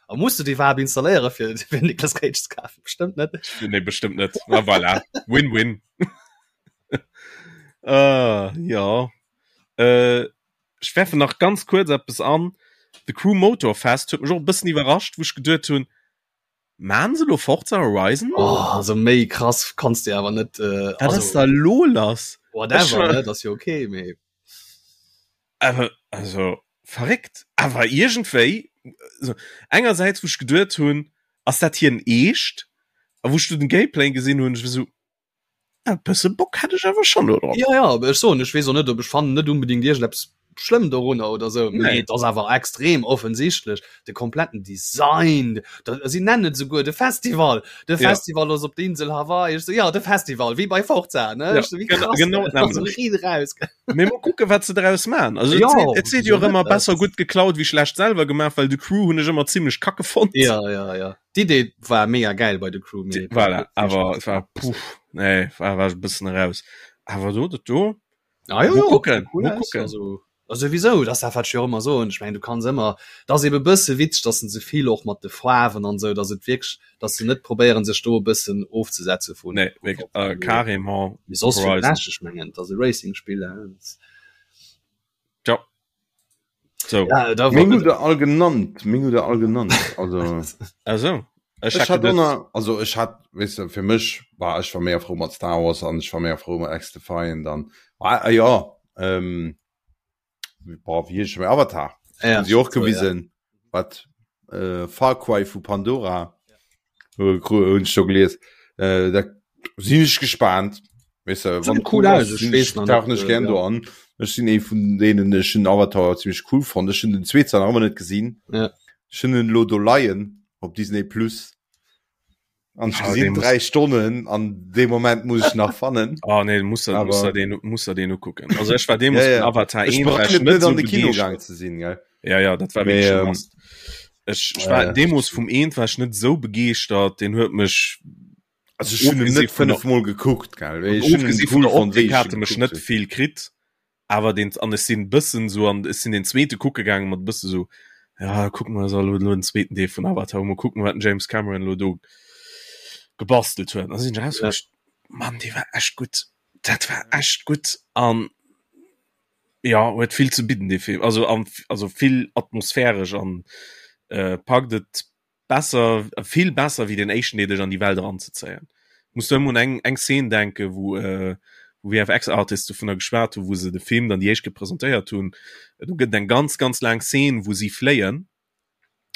A musst du déi iwwerhaapt installéiere fir, fir Nicolas Cage ze kafen? Bestëmmt net. Nee, bestëmmt net. Na voilà. Win-win. äh, ja. Äh, Ech werfen nach ganz kuerz eppes an, The Crew Motorfest huet mech och e bëssen iwwerrascht, wou ech geduet hunn, Maan se elo Forza Horizon? Oh, also méi krass kanns de awer net. Äh, Wat ass da lo lass? Whatever, ne? Dat ass jo okay, mee. Awer, also, verréckt. Awer iergendwéi, also, engersäits, wou ech geduet hunn, ass dat hien eescht? A wou ech du den Gameplay gesinn hunn, ech war sou, e bësse Bock hätt ech awer schonn do drop. Ja, ja, awer ech soen, ech weess och net, ob ech fannen net unbedingt iergendeppes schlëmm dorunner oder sou, mee et ass awer extrem offensichtlech, de kompletten Design, da, si nennen et souguer de Festival, de Festival ass op der Insel Hawaii, ech sou, ja, de Festival, wéi bei Forza, ne, ech sou, wéi krass, genau, also riit eraus. Mee mol kucke wat se draus man. Also ja, et seet jo ëmmer besser gutt geklaut wéi schlecht selwer gemaach, well The Crew hunn ech ëmmer zimmlech kacke fonnt. Ja, ja, ja. D'Idee war mega geil bei The Crew. Mee voilà, awer et war puff, nee, war war e bëssen eraus. Awer do dat do. Ah, ja, ja, kucken, cool aus, kucken. Also, also wieso das dat wat ech jo ëmmer soen. Ech mengen du kanns ëmmer, dat ass ebe bësse witzeg, datt se vill och mat de Faarwen an esou, datt et wierklech dass se net probéieren sech do e bëssen ofzesetze vun nee, wirklich, äh, carrément Mee soss fir de Rescht, ech mengen et ass e Racing-Spill ja so ja, da war Meng hutt all genannt meng hutt all genannt also also ech hat donner also ech hat weißt du, fir mech war ech war méi frou mat Star Wars an ech war méi frou mat X-Defiant dann ah, ah, ja ähm, boah, wie heescht Avatar ja, sie och gewisen ja. wat äh, Far Cry vu Pandora ja. hunn ech do gelies äh, da sinn ech gespannt weißt du, wann cool aus, ich weiß noch tauchen ech gern ja. do an ech sinn ee vun denen ech hun Avatar ziemlich cool fand ech hun den zweeten nach ëmmer net gesinn ja. ech hun en lo do leien op Disney plus An ech gesinn 3 Stonnen an dee Moment muss ech nach fannen. Oh nee, muss er, muss er den, muss er den ukucken. Also ech war deemools ja, ja. Avatar 1 war ich net an de Kino gaang ze sinn, gell? Ja, ja, dat war Mee, ähm, Ech, ech war äh, deemools vum eent war ech net sou begeeschtert, den huet mech also ech hunn en net fënnefmol gekuckt, gell? Ech hunn en cool fonnt, wéi ech en mech net vill kritt. awer den an ech sinn bëssen sou an ech sinn den zweete kucke gaangen mat bësse sou ja kucken mer elo elo den zweeten Deel vun Avatar mol kucken wat den James Cameron elo do gebastelt huet an sinn ech raus ja. Mann dee war echt gutt dat war echt gutt an ja huet vill ze bidden dee Film also an also vill atmosphäresch an äh, packt et besser vill besser wéi den éischten dee dech an déi Welt eranzezéien. Muss do ëmmer un eng eng Szene denke wou äh, wou VFX Artists dovunner geschwat hu wou se de Film dann déi éischt Kéier presentéiert hunn. Do gëtt et eng ganz ganz laang Szene wou si fléien,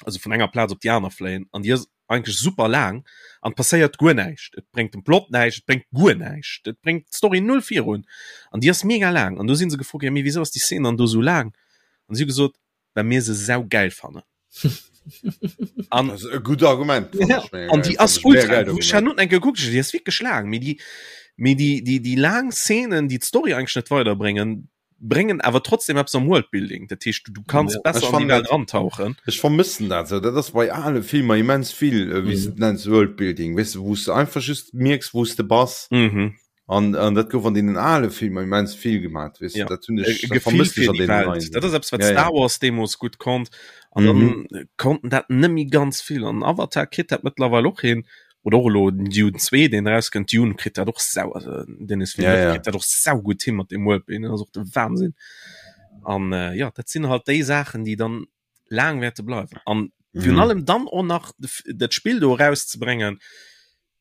also vun enger Plaz op déi aner fléien an déi ass eigentlech super laang an et passéiert guer näischt. Et bréngt dem Plot näischt, et bréngt guer näischt, et bréngt d'Story null virun an déi ass mega laang an do si se gefrot ginn, mee wisou ass déi Szene dann do sou laang? An si hu gesot, well mir se saugeil fannen. An das ist e gut Argument. Ja. An déi ass ultra ech hat eng gekuckt, déi ass wierklech laang, mee déi mee déi déi déi laang Szenen, déi d'Story eigentlech net weiderbréngen, bréngen awer trotzdem eppes am Worldbuilding. Dat heescht, du, du kanns ja. besser an déi Welt rantauchen. Ech vermëssen dat sou. Dat ass bei ale Filmer immens vill, äh, wéi s mhm. du nenns Worldbuilding, weess du, wou s du einfach just mierks, wou s de bass. Mhm. An, an dat gouf an deenen ale Filmer immens vill gemaat, weess ja. dat hunn ech äh, Gefill fir déi Welt. Dat ass eppes wat ja, Star Wars deemools gutt konnt an mhm. dann konnten dat nëmmi ganz vill an Avatar kritt dat mëttlerweil och hin oder och elo den Dune 2 deen rauskënnt Dune kritt dat och sau also Denis Villeneuve ja, ja. kritt dat och sau gutt hin mat dem Worldbuilding ass och de Wahnsinn an äh, ja dat sinn halt déi Saachen déi dann laang wäerte bleiwen an virun mhm. allem dann och nach dat Spill do rauszubringen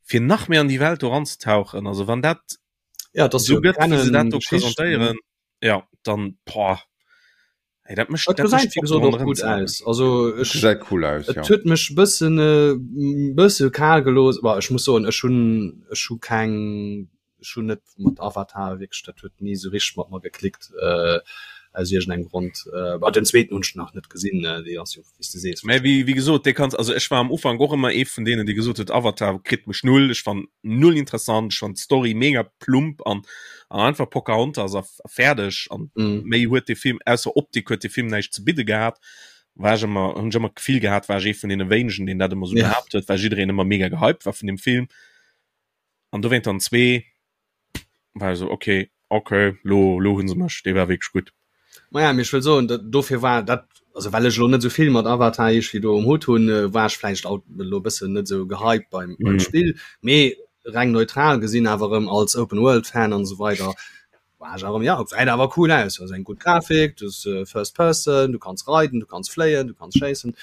fir nach méi an déi Welt do ranzetauchen also wann dat ja das so gëtt wéi se dat do presentéieren ja dann boah ey, dat mécht Dat dat gesäit mécht wéi Bock gesot dran och gutt erëmzerennen. aus. Also ech Gesäit cool aus, et ja. huet mech bëssen äh, bësse kal gelooss. Bah, ech muss soen, ech hunn ech hu keng ech hunn net mat Avatar wierklech, dat huet ni esou richteg mat mer geklickt äh, aus iergendengem Grond. Äh, bah, den zweeten hunn ech nach net gesinn, äh, dee ass jo wéi s de sees Mä wéi wéi gesot, dee kanns also ech war am Ufank och ëmmer ee vun deenen, dee gesot huet, Avatar kritt mech null, ech fann null interessant, ech fann d'Story mega plump an an einfach Pocahontas a fäerdeg an mm. méi huet de Film ausser Optik huet de Film näischt ze bidde gehat. War ech ëmmer hunn ech ëmmer d'Gefill gehat, war ech ee vun deene wéinegen, deen dat ëmmer sou Ja. behaapt huet, well jiddereen ëmmer mega gehypt war vun deem Film. An dowéint dann zwee war ech sou okay, okay, lo lo hunn se mech, dee war wierklech gutt. Maja, mee ech wëll soen, dat dofir war dat, also well ech elo net esou vill mat Avatar iergendwéi do um Hutt hunn, war ech vläicht alt elo e bëssen net esou gehypt beim beim Mhm. Spill, mee reng neutral gesinn awer erëm als Open World Fan an esou weider war ech awer erëm, ja gesäit awer cool aus, ass eng gutt Grafik, du hues First Person, du kanns reiden, du kanns fléien, du kanns schéissen.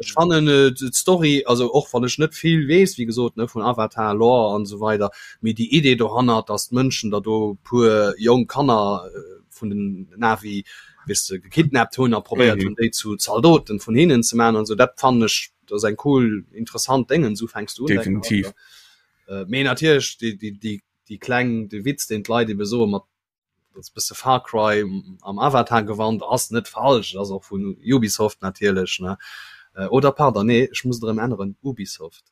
Ech fannen äh, d'Story, also och wann ech net vill weess, wéi gesot, ne, vun Avatar, Lore an esou weider, mee déi Idee dohannert, dass d'Mënschen da do puer jonk Kanner äh, vun den Na'vi, weess de, gekidnappt hunn a probéiert mhm. hunn, déi zu Zaldoten vun hinnen ze man an esou, dat fannen ech, dat ass eng cool, interessant Déngen, esou fänks du un. Definitiv. Äh, mee natierlech déi, déi, déi, déi kleng, de Witz, deen d'Leit ebe soe mat dat ass bësse Far Cry am Avatar Gewand, ass net falsch, ass och vun Ubisoft natierlech ne äh, oder pardon nee ech muss et erëm änneren Ubisoft.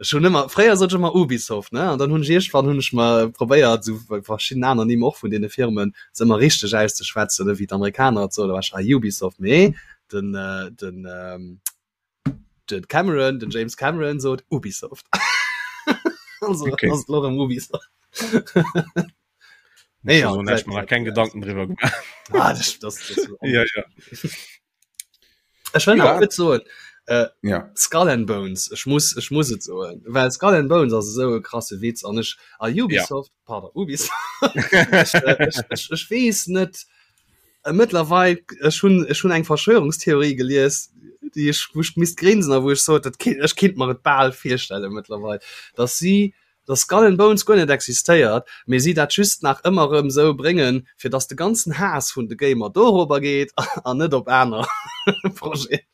Ech hunn ëmmer fréier sot ech ëmmer Ubisoft ne an dann hunn ech iergendwann hunn ech mer probéiert esou bei verschidden aner Nimm och vun deene Firmen se ëmmer richteg auszeschwätzen ne wéi d'Amerikaner et soen, da war ech ah Ubisoft mee den äh, den ähm, den Cameron den James Cameron sot Ubisoft also, okay. Ubisoft nee, ja, so, mal kein Gedanken drüber gemacht ah, das, das, das ja, ja. Ech will ja. so äh, ja. Skull and Bones ich muss ich muss et so well Skull and Bones ass so e krasse Witz an ech a Ubisoft ja. pardon Ubisoft ech, äh, ech, ech, ech wees net Mëttlerweil, ech hunn ech hunn eng Verschwörungstheorie gelies, déi ech wou ech misst grinsen a wou ech sot, dat kinnt ech kinnt mer et bal virstelle mëttlerweil, dass si dass Skull and Bones guer net existéiert, mee si dat just nach ëmmer erëm esou bréngen, fir dass de ganzen Haass vun de Gamer dorobber geet an net op aner Projeten.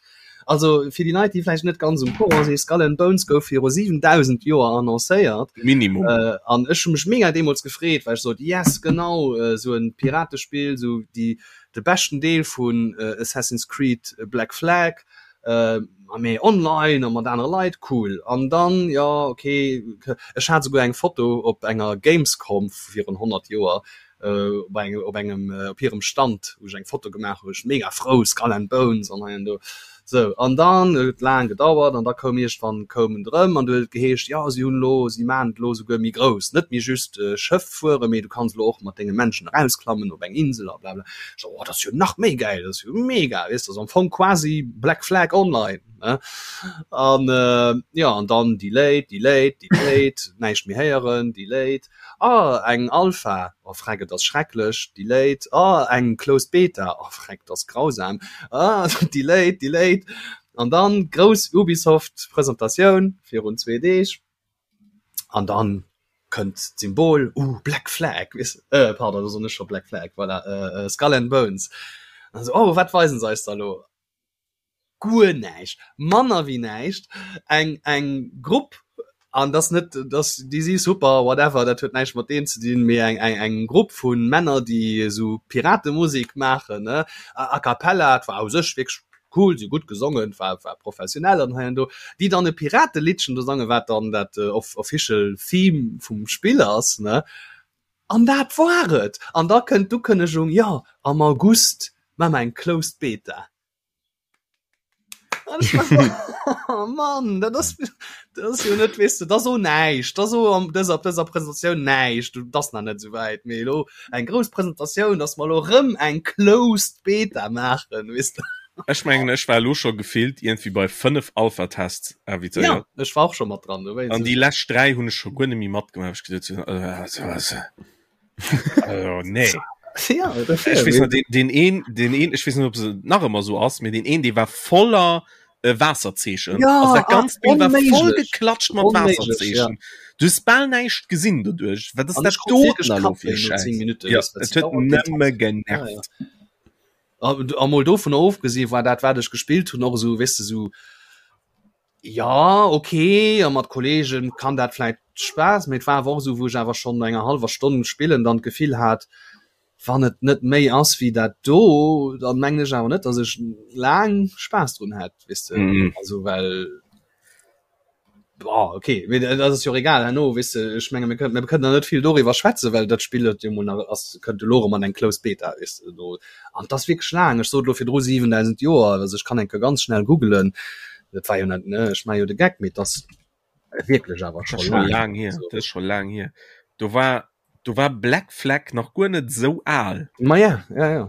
Also fir déi Leit, déi vläicht net ganz um Courant sinn, Skull and Bones gouf viru 7.000 Joer annoncéiert. Minimum. Äh, an ech hu mech mega deemools gefreet, well ech sot, yes, genau, äh, sou en Piratespill, sou déi, de beschten Deel vun äh, Assassin's Creed Black Flag, äh, a méi online a mat anere Leit, cool. An dann, jo, okay, ech hat souguer eng Foto op enger Gamescom virun 100 Joer, op engem op engem op hirem Stand wou ech eng Foto gemaach hu, ech mega frou, Skull and Bones an hei an do. Sou an dann huet et laang gedauert an da koum iergendwann koum en erëm an du huet et geheescht, jo si hunn elo, si maachen et elo souguer méi grouss, net méi just Schëff fueren, mee du kanns elo och mat denge Menschen erausklammen op eng Insel a blabla. Ech sou, oh dat ass jo nach méi gäil, dat ass jo mega, weess de, ass am Fong quasi Black Flag Online, ne. An jo an dann delayed, delayed, delayed, näischt méi héieren, delayed. Ah eng Alpha, oh freck et ass schrecklech, delayed, ah eng closed Beta, oh freck et ass grausam, ah delayed, delayed an dann grouss Ubisoft Presentatioun virun zwee Deeg an dann kënnt d'Symbol, uh Black Flag, weess de, pardon do soen ech scho Black Flag, voilà, Skull and Bones an esou, oh wat weisen se eis da lo? guer näischt, manner wéi näischt, eng eng Grupp, an dass net dass déi si super whatever, dat huet näischt mat deem ze dinn, mee eng eng eng Grupp vu Männer, déi esou Piratemusek maachen, ne, a cappella, et war u sech wierklech cool, si hu gutt gesongen, et war war professionell an hei an do, déi dann e Pirateliddchen do sangen, wat dann dat official Theme vum Spill ass, ne. An dat war et! An da kënnt d'Ukënnegung, jo, am August maache mer eng Closed Beta. Oh Mann, dat ass, dat ass jo net, weess de, dat ass o näischt, dat ass o an dëser, op dëser Presentatioun näischt, dat ass nach net esou wäit, mee elo eng grouss Presentatioun, dass mer elo erëm eng Closed Beta maachen, weess de. Ech mengen, ech war elo scho gefillt iergendwéi bei 5 Alpha-Tests invitéiert. Ja, ech war och scho mat dran, dowéinst. An déi lescht 3 hunn ech scho guer net méi matgemaach, well ech geduet hunn, also, also, nee. Ja, ech weess nach, den, den een, den een, ech weess net, ob se nach ëmmer sou ass, mee den een, dee war voller äh, Waasserzeechen. Ja, also dat ganzt Bild war voll geklatscht mat Waasserzeechen. Ja. Du hues bal näischt gesinn doduerch. Wat ass dat do elo fir Schäiss? Ja, et huet nëmme genervt. Ja, ja. A mol dovun ofgesinn, war dat, wat ech gespillt hunn, och esou, weess de, sou Ja ok, a mat Kollegen kann dat vläit Spaass, mee et war awer och esou wou ech awer schonn no enger hallwer Stonn spillen dann d'Gefill hat, wann et net méi ass wéi dat do, dann mengen ech awer net dass ech laang Spaass drun hätt, weess de, also well boah ok, mee dat ass jo och egal herno, weess de, ech menge mir kënnen mir kënnen der net vill doriwwer schwätzen, well dat Spill huet jo mol nach ass kënnt elo erëm an eng closed Beta, weess de do. An et ass wierklech laang, ech sot elo virdru 7.000 Joer, also ech kann eng Kéier ganz schnell googelen, dat war jo net, ne, ech maache jo de Geck, mee et ass wierklech awer scho laang. Laang hier, dat ass scho laang hier. Do war, do war Black Flag nach guer net esou al. Ma ja, ja, ja.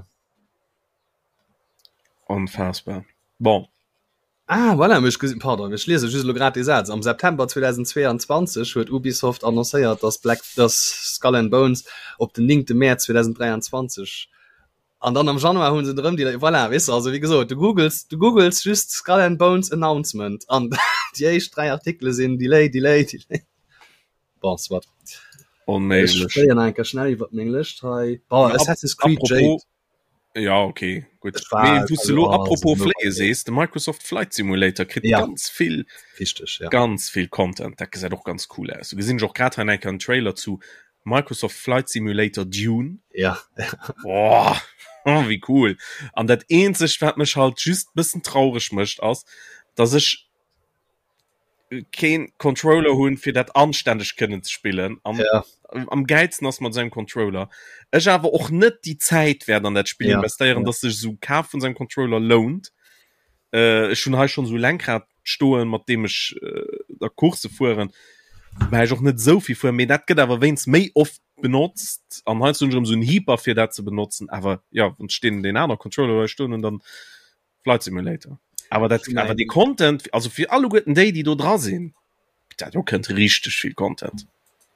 Onfassbar. Bon. Ah, voilà, ech gesinn, pardon, ech liese just elo grad dee Saz. Am September 2022 huet Ubisoft annoncéiert, dass Black, dass Skull and Bones op den 9. Mäerz 2023. An dann am Januar hunn se drëm déi voilà, weess de, also wéi gesot, du googles, du googles just Skull and Bones Announcement an déi éischt 3 Artikele sinn Delay, Delay, Delay. Bon, soit. Onméiglech. Ech fléien eng Kéier schnell iwwer meng Lëscht hei. Bon, Assassin's Creed Apropos, Jade. Ja, okay, gut. Ech war, Mee wou s du also, lo oh, apropos so fléie sees, de Microsoft Flight Simulator kritt Ja. ganz vill, Wichteg, ja. ganz vill Content. Dat gesäit och ganz cool aus. Do gesinn ech och grad hei eng Kéier en Trailer zu Microsoft Flight Simulator Dune. Ja. Boah, oh, wéi cool. An dat eenzegt, wat mech halt just bëssen traureg mécht, ass, dass ech keen Controller hunn, fir dat anstänneg kënnen ze spillen. Am, Ja. am geilsten ass mat sengem Controller. Ech awer och net déi Zäit wäert an dat Spill Ja, investéieren, ja. dass sech esou Kaf vun sengem Controller lount. Äh, ech hunn hei schonn esou Lenkrad stoen, mat deem ech äh, da Course fueren. Wobäi ech och net esou vill fueren, mee dat gëtt awer wéinst méi oft benotzt an heiansdo hunn ech erëm esou en Hyper fir dat ze benotzen. Awer ja, wann ech deen, deen aner Controller hei stoen hunn, dann Flight Simulator. Awer dat, awer dee Content, also fir alleguerten déi, déi do dra sinn, dat do kënnt richteg vill Content.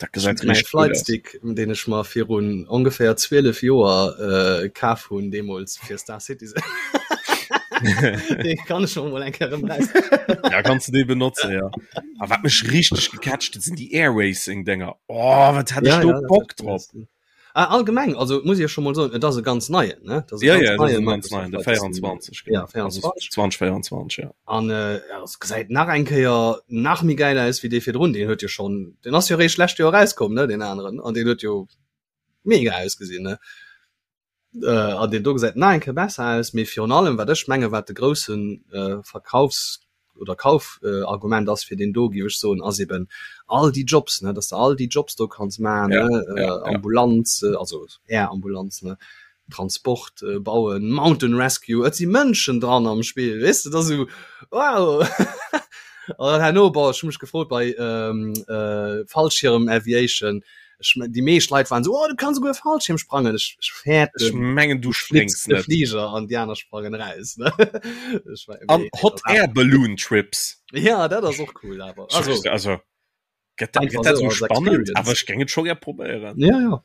Dat gesäit Mäi richteg gutt aus. Flightstick, deen ech mer virun ongeféier 12 Joer äh, kaf hunn, deemools fir Star Citizen. Dee kann ech mol eng Kéier erëm raus. Ja, kanns du dee benotzen, ja. A wat mech richteg gecatcht huet, sinn déi Air Racing Dénger. Oh, wat hat ech Ja, do ja, dat Bock hat drop! Ah, allgemeng, also muss ich ja schon mal soen, et ass e ganz neien, ne? Dat ass e Ja, ganz ja, dat ass neien e ganz Microsoft neien, de Flight Simulator. 24, Ja, genau. Also 24. 2024, ja. An äh, ja, es gesäit nach eng Kéier nach méi geil aus wéi dee virdrun. Deen huet jo schon, deen ass jo réischt lescht Joer erauskomm, ne, deen aneren. An deen huet jo mega ausgesinn, ne? Äh, an deen do gesäit nach eng Kéier besser aus, mee virun allem, wat ech menge wat de groussen äh, Verkaufs oder Kaufargument ass fir deen do, géif ech soen, ass eben all déi Jobs, ne, dass de all déi Jobs do kanns maachen, Ja, ne, ja, ja. Ambulanz, also Air-Ambulanz, ne, Transport, bauen, Mountain Rescue, et si Mënschen dran am Spill, weess de, dat ass esou wow. An dann herno, bon, ech hu mech gefrot bei Fallschirm Aviation, Ech mein, déi meescht Leit waren so, oh, du kanns souguer Fallschirm sprangen. Ech, ech fäerten, Ech mengen, du du flips spréngs de net. Fliger an déi aner sprangen raus. Ne? Ech war, An nee, Hot dat Air Balloon Trips. Ja, dat ass och cool, awer. Also, Also, also gëtt dat, einfach gëtt dat so so als spannend, Experience. awer ech géing et scho gär probéieren. Ja, ja.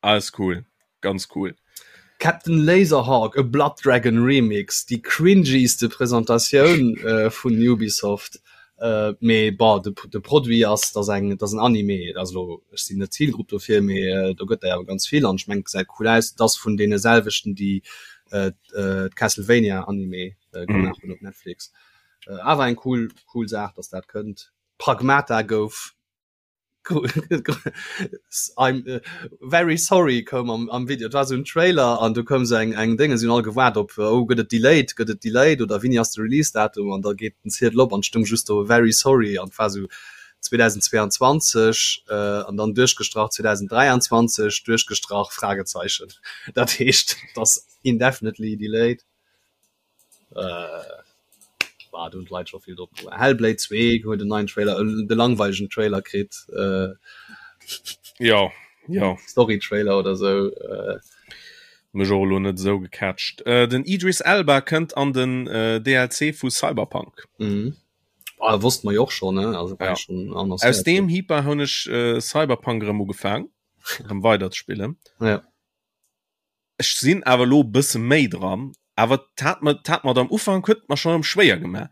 Alles cool, ganz cool. Captain Laserhawk, A Blood Dragon Remix, déi cringyste Presentatioun äh, vun Ubisoft. Äh, mee bon, de, de Produit ass, dass eng, dass en Anime, also ech sinn net Zielgrupp dofir, mee äh, do gëtt der awer ganz vill an ech mengen, gesäit cool aus. Et ass vun deene selwechten, déi äh, äh, d'Castlevania Anime äh, gemaach hunn op Netflix. Äh, awer eng cool, cool Saach, dass dat kënnt. Pragmata gouf I'm äh, very sorry koum am, am Video. Et war so en Trailer an du koum so eng eng Dénge sinn all gewaart op oh gëtt et delayed, gëtt et delayed oder wéini ass de Release-Datum an da geet den Ziedel op an stung just do very sorry an war so 2022 äh, an dann duerchgestrach 2023 duerchgestrach Fragezeichen. Dat heescht, dass indefinitely delayed. Äh, war do hunn d'Leit scho vill drop gewaart. Hellblade 2 huet en neien Trailer, äh, de langweilegen Trailer kritt. Äh, Ja, ja. Story-Trailer oder sou. Äh, Mech och elo net esou gecatcht. Äh, den Idris Elba kënnt an den äh, DLC vu Cyberpunk. mhm. Ah, wosst mer jo och schon, ne? Also war Ja. schon Aus annoncéiert. deem Hyper hunn ech äh, Cyberpunk erëm ugefaang, erëm weider ze spillen. Ja. Ech sinn awer elo e bësse méi dran, awer et hat mer, et hat mer am Ufank huet et mer schonn erëm schwéier gemaach,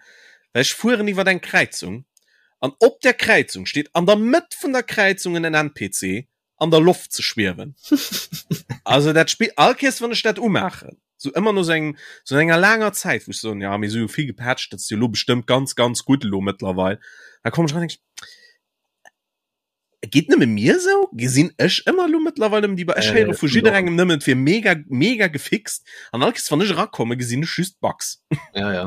well ech fueren iwwer eng Kräizung an op där Kräizung steet an der Mëtt vun der Kräizung en NPC an der Loft ze schwiewen. Also dat Spill, all Kéiers wann ech dat umaachen, sou ëmmer no sou engem, sou enger laanger Zäit, wou ech soen, ja mee si hu vill gepatcht, dat ass jo elo bestëmmt ganz, ganz gutt elo mëttlerweil, da kommen ech eran an denken ech, Geet nëmme mir sou? Gesinn ech ëmmer elo mëttlerweil nëmmen déi Ech héiere vu jidderengem nëmmen, et wier mega, mega gefixt. An all Kéiers, wann ech erakommen, gesinn ech just Bugs. Ja, ja.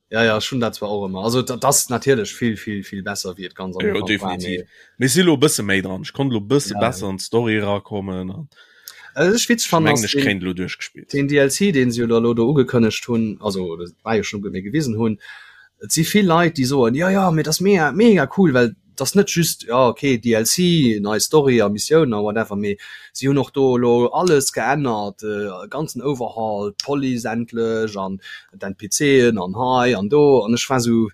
Ja, ja, ech hunn dat zwar och ëmmer. Also dat ass natierlech vill, vill, vill besser, wéi et ganz am Jo, Ufank war, definitiv. mee Mee ech si elo e bësse méi dran. Ech konnt elo e bësse Ja, ja. besser an d'Story erakommen an Also ech witzeg ech fannen mengen, ass ech den, kréien et elo duerchgespillt. den DLC, deen se jo da elo do ugekënnegt hunn, also dat war jo schonn, mee gewisen hunn, et si vill Leit, déi soen, jo, jo, mee dat ass mega, mega cool, well et ass net just, jo, okay, DLC, nei Story a Missiounen a whatever, mee si hunn och do elo alles geännert, e ganzen Overhaul, d'Police endlech an d'NPCen an hei an do. An ech war esou.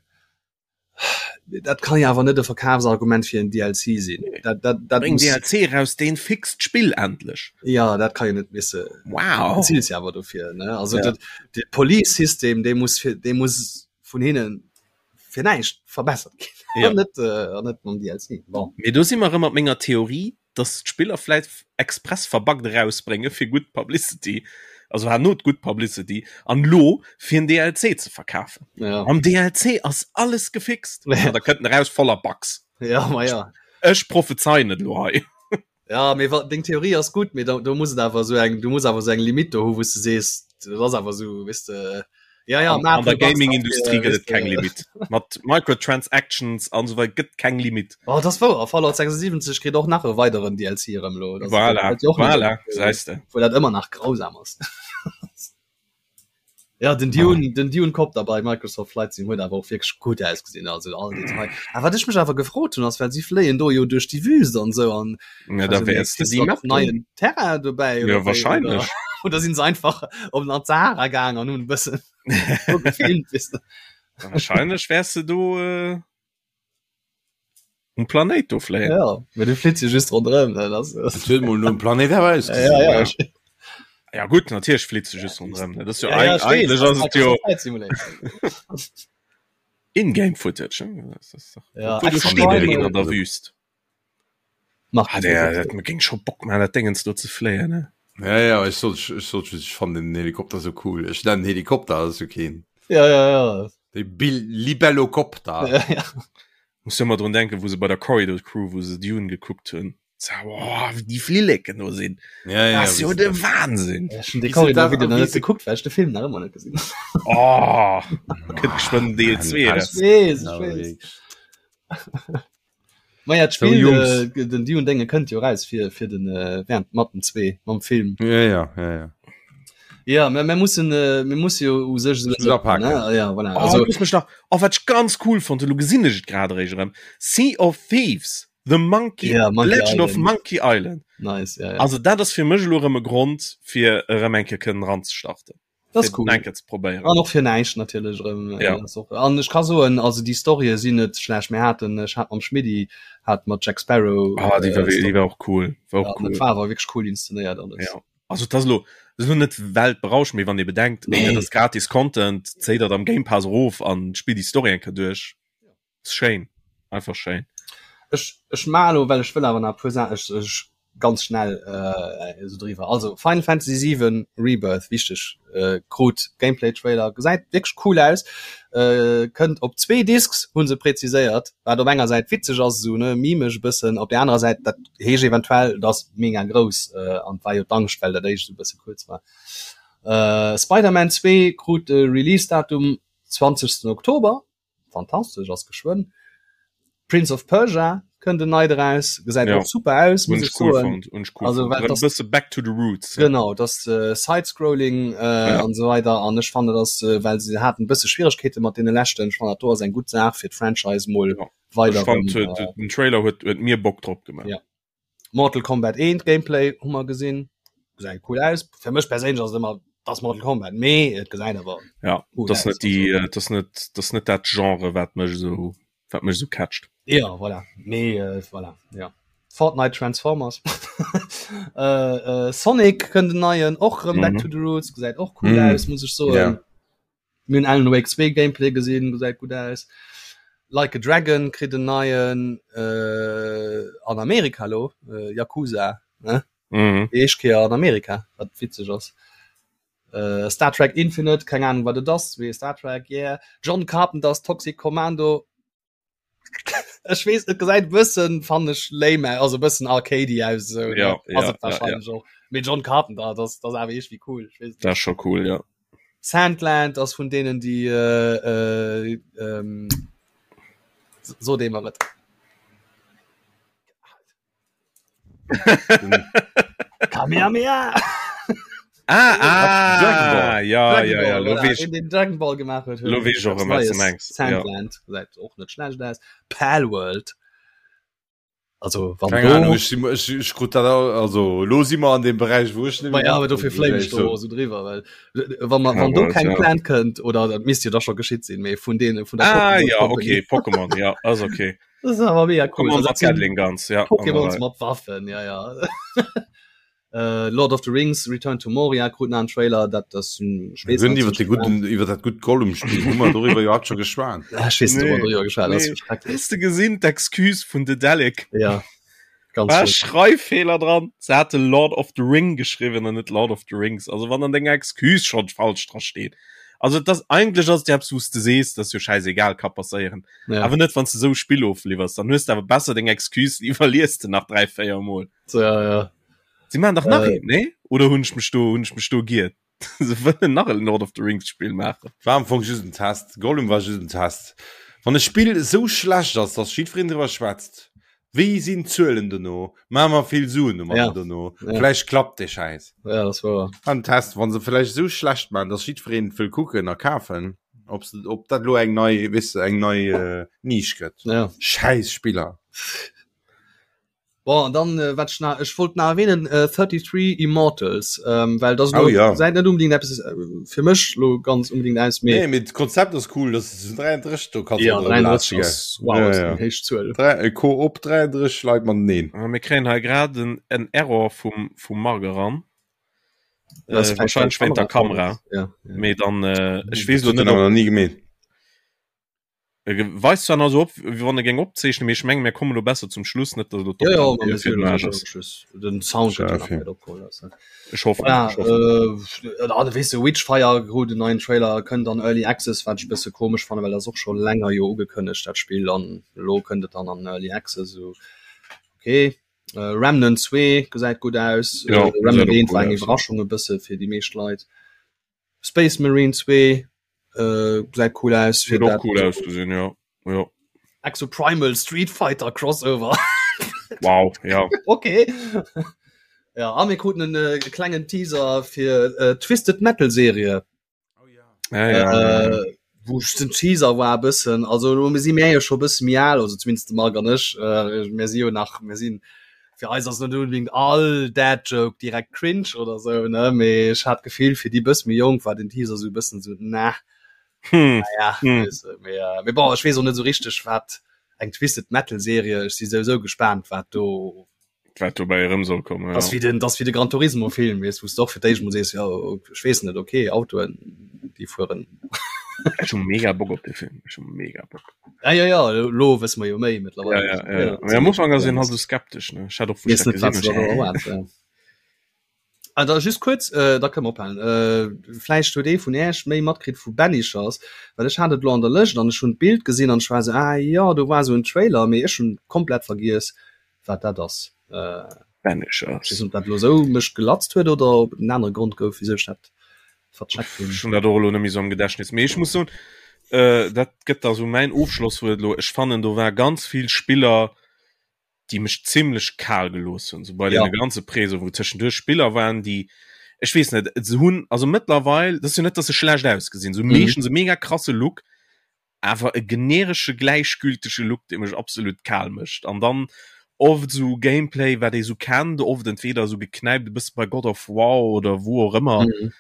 Dat kann jo awer net e Verkafsargument fir en DLC sinn. Dat, dat, dat Bréng muss, DLC raus, deen fixt d'Spill endlech. ja, dat kann jo net misse. Wow. Bezilt jo awer dofir, ne? Also Ja. dat, de Police-System, dee muss fir, dee muss vun hinnen fir näischt verbessert ginn. Ja. An net, äh, an net mam DLC. Bon. Mee do si mer erëm mat menger Theorie, dass d'Spiller vläit express verbuggt erausbrénge fir gutt Publicity, also herno d'gutt Publicity, an lo fir en DLC ze verkafen. Ja. Am DLC ass alles gefixt. Ja. An da kënnt en eraus voller Bugs. Ja, ma ja. Ech prophezeien et lo hei. Ja, mee wa, deng Theorie ass gutt, mee da, do muss et awer esou eng, du muss awer esou eng Limite do hu wou s de sees, dat ass awer esou, weess de, ja, ja, An, an der Gaming-Industrie gëtt et keng Limit. Mat Microtransactions an esou weider gëtt keng Limit. Oh, dat ass wouer, Fallout 76 kritt och nach e weideren DLC erëm elo. Dat ass- Voilà, dat jo och net voilà, op, gesäis de. Wou dat ëmmer nach grausam ass. Ja, den Dune, den Dune Copter bei Microsoft Flight Sim huet awer och wierklech gutt ausgesinn, also all Detail. A wat ech mech awer gefrot hunn ass, well si fléien do jo duerch déi Wüst an esou an Ja, da also, wäers de ist déi da Map och neien Terrain dobäi Ja, oder wéi, wahrscheinlech. Oder, oder sinn se einfach op an d'Sahara gaang an hunn e bëssen do gefilmt, weess de. Wahrscheinlech wäers de do äh, um Planéit do fléien. Ja, mee du flitt jo just ronderëm, ne, das Et huet mol nom Planéit awer ja, ausgesinn. ja, Ja. Ja gutt, natierlech flitt se just ronderëm. ne? Dat ass jo ja, ja, eig ech weess, eigentlech das ass et jo Microsoft Flight Simulator. In-game Footage. ne? Das ass doch- Ja, Obwohl, do extra steet Primal. een an der Wüst. Mach Ah, der, dat géing scho Bock man, dat Dingens do ze fléien, ne? Ja, ja, ech sot, ech sot just, ech fannen den Helikopter sou cool. Ech nennen Helikopter, ass jo keen. Ja, ja, ja. De Bil Libellokopter. Ja, ja. Muss jo ëmmer drun denken, wou se bei der Corridor Crew, wou se Dune gekuckt hunn. Sa, oh, wéi déi Flilleken do sinn. Ja, ja, Das ass jo wéi de se- Wahnsinn. Ech hunn de Wéi se Corridor dat- Video nach wéi net se- gekuckt, well ech de Film nach ëmmer net gesinn hunn. Oh, kënnt geschwënn Deel 2 Ah, raus. Ech weess, ech Ja, weess. wierklech. Ma ja, So, d'Spill, Jungs. äh, den Dune Dénge kënnt jo raus fir, fir den, äh, während mat dem 2, mam Film. Ja, ja, ja, ja. Ja, mir, mir mussen, äh, mir musse jo u sech Muss apaken. ne? Ja, voilà. Oh, Also, looss mech nach, oh, wat ech ganz cool fonnt, elo gesinn ech et grad eréischt erëm, Sea of Thieves, The Monkey, Ja, Monkey Legend of Island. Monkey Island. nice, ja, ja. Also dat ass fir mech elo erëm e Grond, fir erëm eng Kéier kënnen eranzestarten. Das ist cool. Eng Kéier ze probéieren. An och fir näischt natierlech erëm. äh, Ja. ass och- An ech ka soen, also déi Storye sinn net schlecht. Mir haten, ech hat mam Schmiddi, hat mat Jack Sparrow. Ah, déi war, äh, déi war och cool. War och ja, cool. Dat war awer wierklech cool inszenéiert alles. Ja. Also dat ass elo, dat ass elo net weltberauschend, mee wann ee bedenkt, Nee. dat ass gratis Content, zéi dat am Game Pass erof an spill déi Story eng Kéier duerch. Ass schéin, einfach schéin. Ech, ech maachen elo, well ech wëll awer nach e puer Saachen, ech, ech ganz schnell äh, esou driwwer. Also Final Fantasy 7 Rebirth, wichteg, äh, krut Gameplay-Trailer, gesäit wierklech cool aus, äh, kënnt op zwee Discs, hu se präziséiert, wat op enger Säit witzeg ass, esou ne, mimeg e bëssen, op där anerer Säit, dat heescht eventuell, et ass mega grouss, äh, an et war jo d'Angscht, well dat éischt esou e bësse kuerz war. Äh, Spider-Man 2 krut de Release-Datum 20. Oktober. Fantastesch, ass geschwënn. Prince of Persia kënnt en neit eraus, gesäit Ja. och super aus, Hunn muss ech ech cool soen. fonnt, hunn ech cool Also, fonnt. well Erëm das- bësse back to the roots. Genau, das äh, Side-Scrolling äh, Ja. an esou weider an ech fannen dass äh, well se haten e bësse Schwieregkeete mat deene leschten, ech fannen dat do ass eng gutt Saach fir d'Franchise mol Ja. weider Ech fand, erëm, huet, äh, den Trailer huet, huet mir Bock drop gemaach. Ja. Mortal Kombat 1 Gameplay hu mer gesinn, gesäit cool aus. Fir mech perséinlech ass et ëmmer das Mortal Kombat, mee et gesäit awer Ja, cool das aus. net déi, äh, das net, das net dat Genre, wat mech esou, wat mech esou catcht. Ja, voilà. Mee äh, voilà, ja. Fortnite Transformers. äh, äh, Sonic kënnt en neien, och rëm Back Mhm. to the Roots, gesäit och cool Mhm. aus, muss ech soen. Ja. Mir hunn Alan Wake 2 Gameplay gesinn, gesäit gutt aus. Like a Dragon kritt en neien äh, an Amerika lo, äh, Yakuza, ne? Mhm. Déi éischt Kéier an Amerika, wat witzeg ass. Äh, Star Trek Infinite, keng Ahnung wat et ass, mee Star Trek, yeah. John Carpenter's Toxic Commando, Ech weess, et gesäit e bëssen, fannen ech, lame aus, also e bëssen arcadey aus, esou, ne? Ja, Ass ja, et ja, ja. wahrscheinlech och. Mee John Carpenter, dat ass, dat ass awer iergendwéi cool, ech weess et Dat net. ass scho cool, ja. Sandland ass vun deenen, déi, äh, ähm, sot ee mer et. Kamehameha! Ah, ah, Dragon Ball. ja, Dragon ja, ja, Ball, lo voilà, weess deen, deen Dragon Ball gemaach huet, huet lo weess ech och eppes erëm, wat s de Neies. mengs. Ja. Sandland gesäit och net schlecht aus. Palworld. Also wann Keng Ahnung, ech, ech, ech krut dat also lo si mer an dem Beräich wou ech net ja, awer dofir fléim ech do so driwwer well wann man wann do keng Plan kënnt oder dat misst jo da scho geschitt sinn méi vun dee vun der ah, ja, okay Pokémon ja ass okay das ist awer mega cool Pokémon mat Gatling Guns ja Pokémons mat Waffen ja ja Äh, Lord of the Rings Return to Moria krut nach en Trailer, dat ass hunn iwwer de gudden iwwer dat gutt Gollum-Spill hu mer doriwwer jo haut scho geschwat. Ah, ech weess net, ob mer doriwwer geschwat hunn, ass schrecklech. Hues de gesinn d'Excuse vun Daedalic? Ja, ganz War schlimm. Schreiffeeler dran. Se hate Lord of the Ring geschriwwen an net Lord of the Rings. Also wann an denger Excuse schonn falsch dra steet. Also et ass eigentlech ass et jo eppes wou s de sees, dat ass jo schäisegal, ka passéieren. Ja. Awer net wann s de esou e Spill ofliwwers, dann hues de awer besser deng Excuse iwwerlies de nach 3, 4 mol. So, ja, ja. Sie machen dach nach äh, een, nee? Oder hunn ech mech do hunn ech mech do giert? Se wëllen nach en Lord of the Rings Spill maachen. War am Fong just en Test. Gollum war just en Test. Wann e Spill esou schlecht ass, dass jiddwereen driwwer schwätzt, wéi sinn d'Zuelen dono? Maache mer vill Suen domadder ja. dono? Ja. Vläicht klappt dee Schäiss. Ja, das war. War en Test, wann se vläicht esou schlecht maachen, dass jiddwereen wëll kucken a kafen, ob se, ob dat lo eng nei, weess de, eng nei äh, Nisch gëtt. Ja. Schäiss Spiller. Bon, an dann äh, wat ich nach, ich wollt nach erwähnen äh, 33 Immortals ähm, well das oh, ja. seit net unbedingt etwas äh, fir mech lo ganz unbedingt aus mee nee, mit Konzept ass cool das ist 33 du kannst ja, 33 ass, wow, ja, ja. héich Zuel. Drei, äh, Koop 33 Leit man neen ah, mir kréien hei grad en, en Error vum vum Marc eran äh, wahrscheinlich wéint der Kamera ja, ja. mee dann äh, ech weess lo net ob nie gemeet E weist zwar nach esou op, wéi wann e géing opzeechnen, mee ech mengen, mir kommen elo besser zum Schluss, net datt elo Ja, ja, d'Opnam mir fir sinn den Aarsch elo ass. zum Schluss. Den Sound Schau, gëtt jo nach okay. net opgeholl. Also. Ech hoffen, Ja, ech hoffen. äh, ah, weess de, Witchfire krut en neien Trailer, kënnt an Early Access, wat ech e bësse komesch fannen, well dat ass och scho länger jo ugekënnegt, dat Spill, an elo kënnt et dann an Early Access, esou okay. Äh, Remnant 2 gesäit gutt aus. Ja, Äh, Remnant gesäit och 1 cool war eng aus, ja. Iwwerraschung e bësse fir déi meescht Leit. Space Marine 2 äh, gesäit cool aus fir dat cool ausgesinn ja ja Exoprimal Street Fighter Crossover wow ja okay ja a mir kruten en äh, klengen Teaser fir äh, Twisted Metal Serie oh, ja. Ja, ja, äh, ja. wou ech den Teaser war e bëssen also lo si mir jo scho bësse méi al also zumindest de Marc an ech äh, mir si jo nach mir sinn fir eis ass net unbedingt all Dad Joke direkt cringe oder sou ne mee ech hat d'Gefill fir déi bësse méi jonk war den Teaser sou e bëssen sou na Hm. naja Hm. weess de mee äh, mee bon ech weess och net sou richteg wat eng Twisted Metal Serie ech si souwisou gespaant wat do Wat dobäi erëm soll kommen, Das ja. wie den das wie de Gran Turismo Film wees wos doch fir d'éischt mol sees ja ech weess net okay Autoen déi fueren. Ech hu mega Bock op de Film ech hu mega Bock. Ja ja ja lo wësse mer jo méi Ja, mittlerweile. ja, ja, ja. Mee am Ufank ass een halt sou skeptesch ne ech hat och wou ech Weess dat net wat gesinn se hunn da ech erwaart ja. Ah da just kuerz äh, da kënne mer ophalen. Äh, vläicht huet ee vun Äech méi matkritt vu Banishers, well ech hat et lo an der Lëscht an ech hunn d'Bild gesinn an ech war sou ah jo do war sou en Trailer mee ech hunn komplett vergiess wat dat ass. Äh, Banishers. Ech weess net, ob dat elo esou mech gelatzt huet oder ob et en anere Grond gouf, wisou ech dat vercheckt hunn. Ech hunn dat och elo net méi esou am Gedächtnis. Mee ech muss soen, äh, dat gëtt da sou mäin Ofschlosswuert elo, ech fannen do war ganz vill Spiller, déi mech zimlech kal gelooss hunn, sou bei Ja. deene ganze Preso, wou tëschenduerch Spiller waren, déi, ech weess net, se hunn, also mëttlerweil, dat ass jo net, datt se schlecht ausgesinn, se hu Mhm. meeschtens e mega krasse Look, awer e generesche gläichgültege Look dee mech absolut kal mécht an dann oft sou Gameplay wat ee sou kennt oft entweder sou geknäipt e bësse bei God of War oder wou och ëmmer mhm.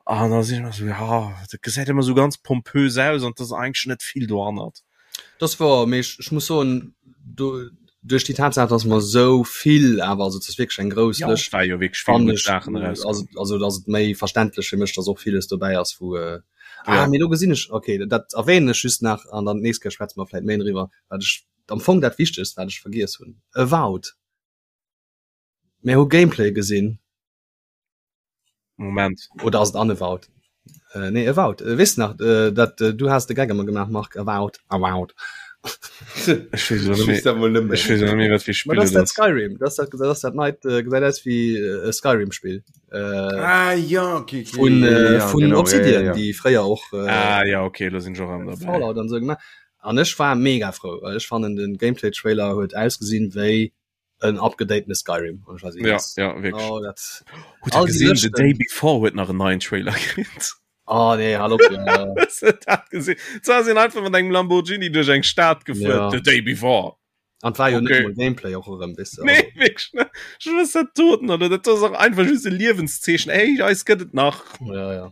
an da sinn ech sou ja dat gesäit ëmmer sou ganz pompös aus an dat ass eigentlech net vill dohannert. Das war mee ech, ech muss soen do duerch déi Tatsaach dass mer sou vill awer also et ass wierklech eng grouss Ja, Lëscht et war jo wierklech vill fannen gutt ech Saachen eraus. also also dass et méi verständlech fir mech dass och villes dobäi ass wou äh, ah Ja. mee do gesinn ech okay dat erwähnen ech just nach an dann d'nächst Kéier schwätze mer vläit méi driwwer wat ech am Fong dat Wichtegst wat ech vergiess hunn Avowed mir hu Gameplay gesinn. Moment. Oder ass et Unavowed? Äh, nee, Avowed. Äh, weess nach, äh, dat äh, du has de Gag ëmmer gemaach, Marc, Avowed, Avowed. Ech weess elo net méi, ech weess elo net méi, wat fir Ma Spill dat ass et dat ass. Skyrim, dat ass dat, dat ass dat neit, äh, gesäit aus wéi äh, e Skyrim-Spill. Äh, Ah ja, okay, okay. vun, ja, äh, ja, vun genau, ja, Obsidian, ja, ja. déi fréier och äh, Ah ja, okay, elo sinn ech och erëm derbäi. Fallout an esou gemaach. An ech war mega frou, well ech fannen den Gameplay-Trailer huet ausgesinn wéi en upgedatene Skyrim und ich weiß nicht, ja, was. ja, wirklich. Oh, dat, Hutt der all die gesinn, The Lëschten. Day Before huet nach en neien Trailer kritt. Oh nee, hallo. Ja. Hues de dat gesinn? Zwar sinn einfach mat engem Lamborghini duerch eng Stad gefuer, Ja. The Day Before. An war jo okay. net Gameplay och erëm wis nee, toten oder dat ass och einfach just e Liewenszeechen ey eis gëtt et nach ja, ja.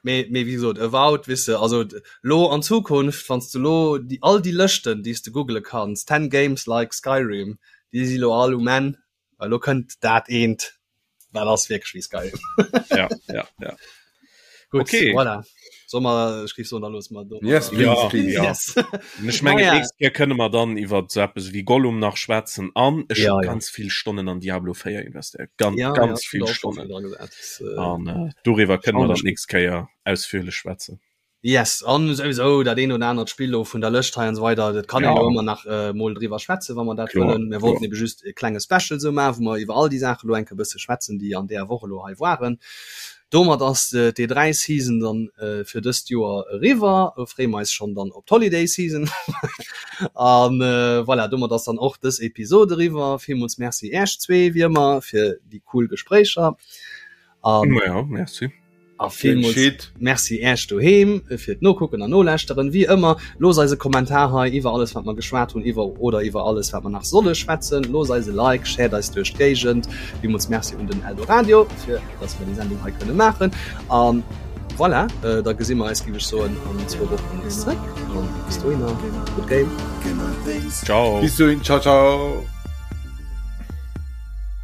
Mee, mee wéi gesot Avowed wisse also lo an Zukunft wanns du lo die all die Lëschten déi s de googele kanns 10 games like Skyrim déi si lo all um Enn well lo kënnt dat eent wat ass wierklech wéi Skyrim. ja, ja, ja. Gut, okay. Voilà. Soll mer, ech géif soen, da loosse mer do. Yes, please, ja, please. Ja. Yes. Ech mengen, ja. nächst Kéier kënne mer dann iwwer so eppes wéi Gollum nach schwätzen an ech ja, ja. ganz vill Stonnen an Diablo 4 investéiert. Ganz, ja, ganz ja, vill Stonnen. Viel äh, an äh, doriwwer kënne mer dann nächst Kéier ausführlech schwätzen. Yes, an souwisou dat eent oder anert Spill lo vun der Lëscht hei an esou weider, dat kann een jo ëmmer nach mol driwwer schwätzen, wa mer dat wëllen. Mir wollten ebe just e klenge Special esou maachen, wou mer iwwer all déi Saache lo eng Kéier e bësse schwätzen, déi an deeër Woch elo hei waren. Domat ass d'E3 Season dann fir dëst Joer eriwwer. Elo freeë mer eis schonn dann op d'Holiday Season. An voilà, domat ass dann och dës Episod eriwwer. Villmools Merci Äech zwee wéi ëmmer fir déi cool Gespréicher. An ja, merci. A villmools Merci Äech doheem fir d'Nokucken an Nolauschteren. Wéi ëmmer, loosst eis e Kommentar hei iwwer alles wat mer geschwat hunn iwwer oder iwwer alles wat mer nach solle schwätzen. Loosst eis e Like, shared eis duerch d'Géigend. Villmools Merci un den Eldoradio fir dass mer déi Sendung hei kënne maachen. A voilà, da gesi mer eis, géif ech soen, an zwou Wochen nees zréck. An bis dohinner, good game. Ciao. Bis dohin, ciao ciao.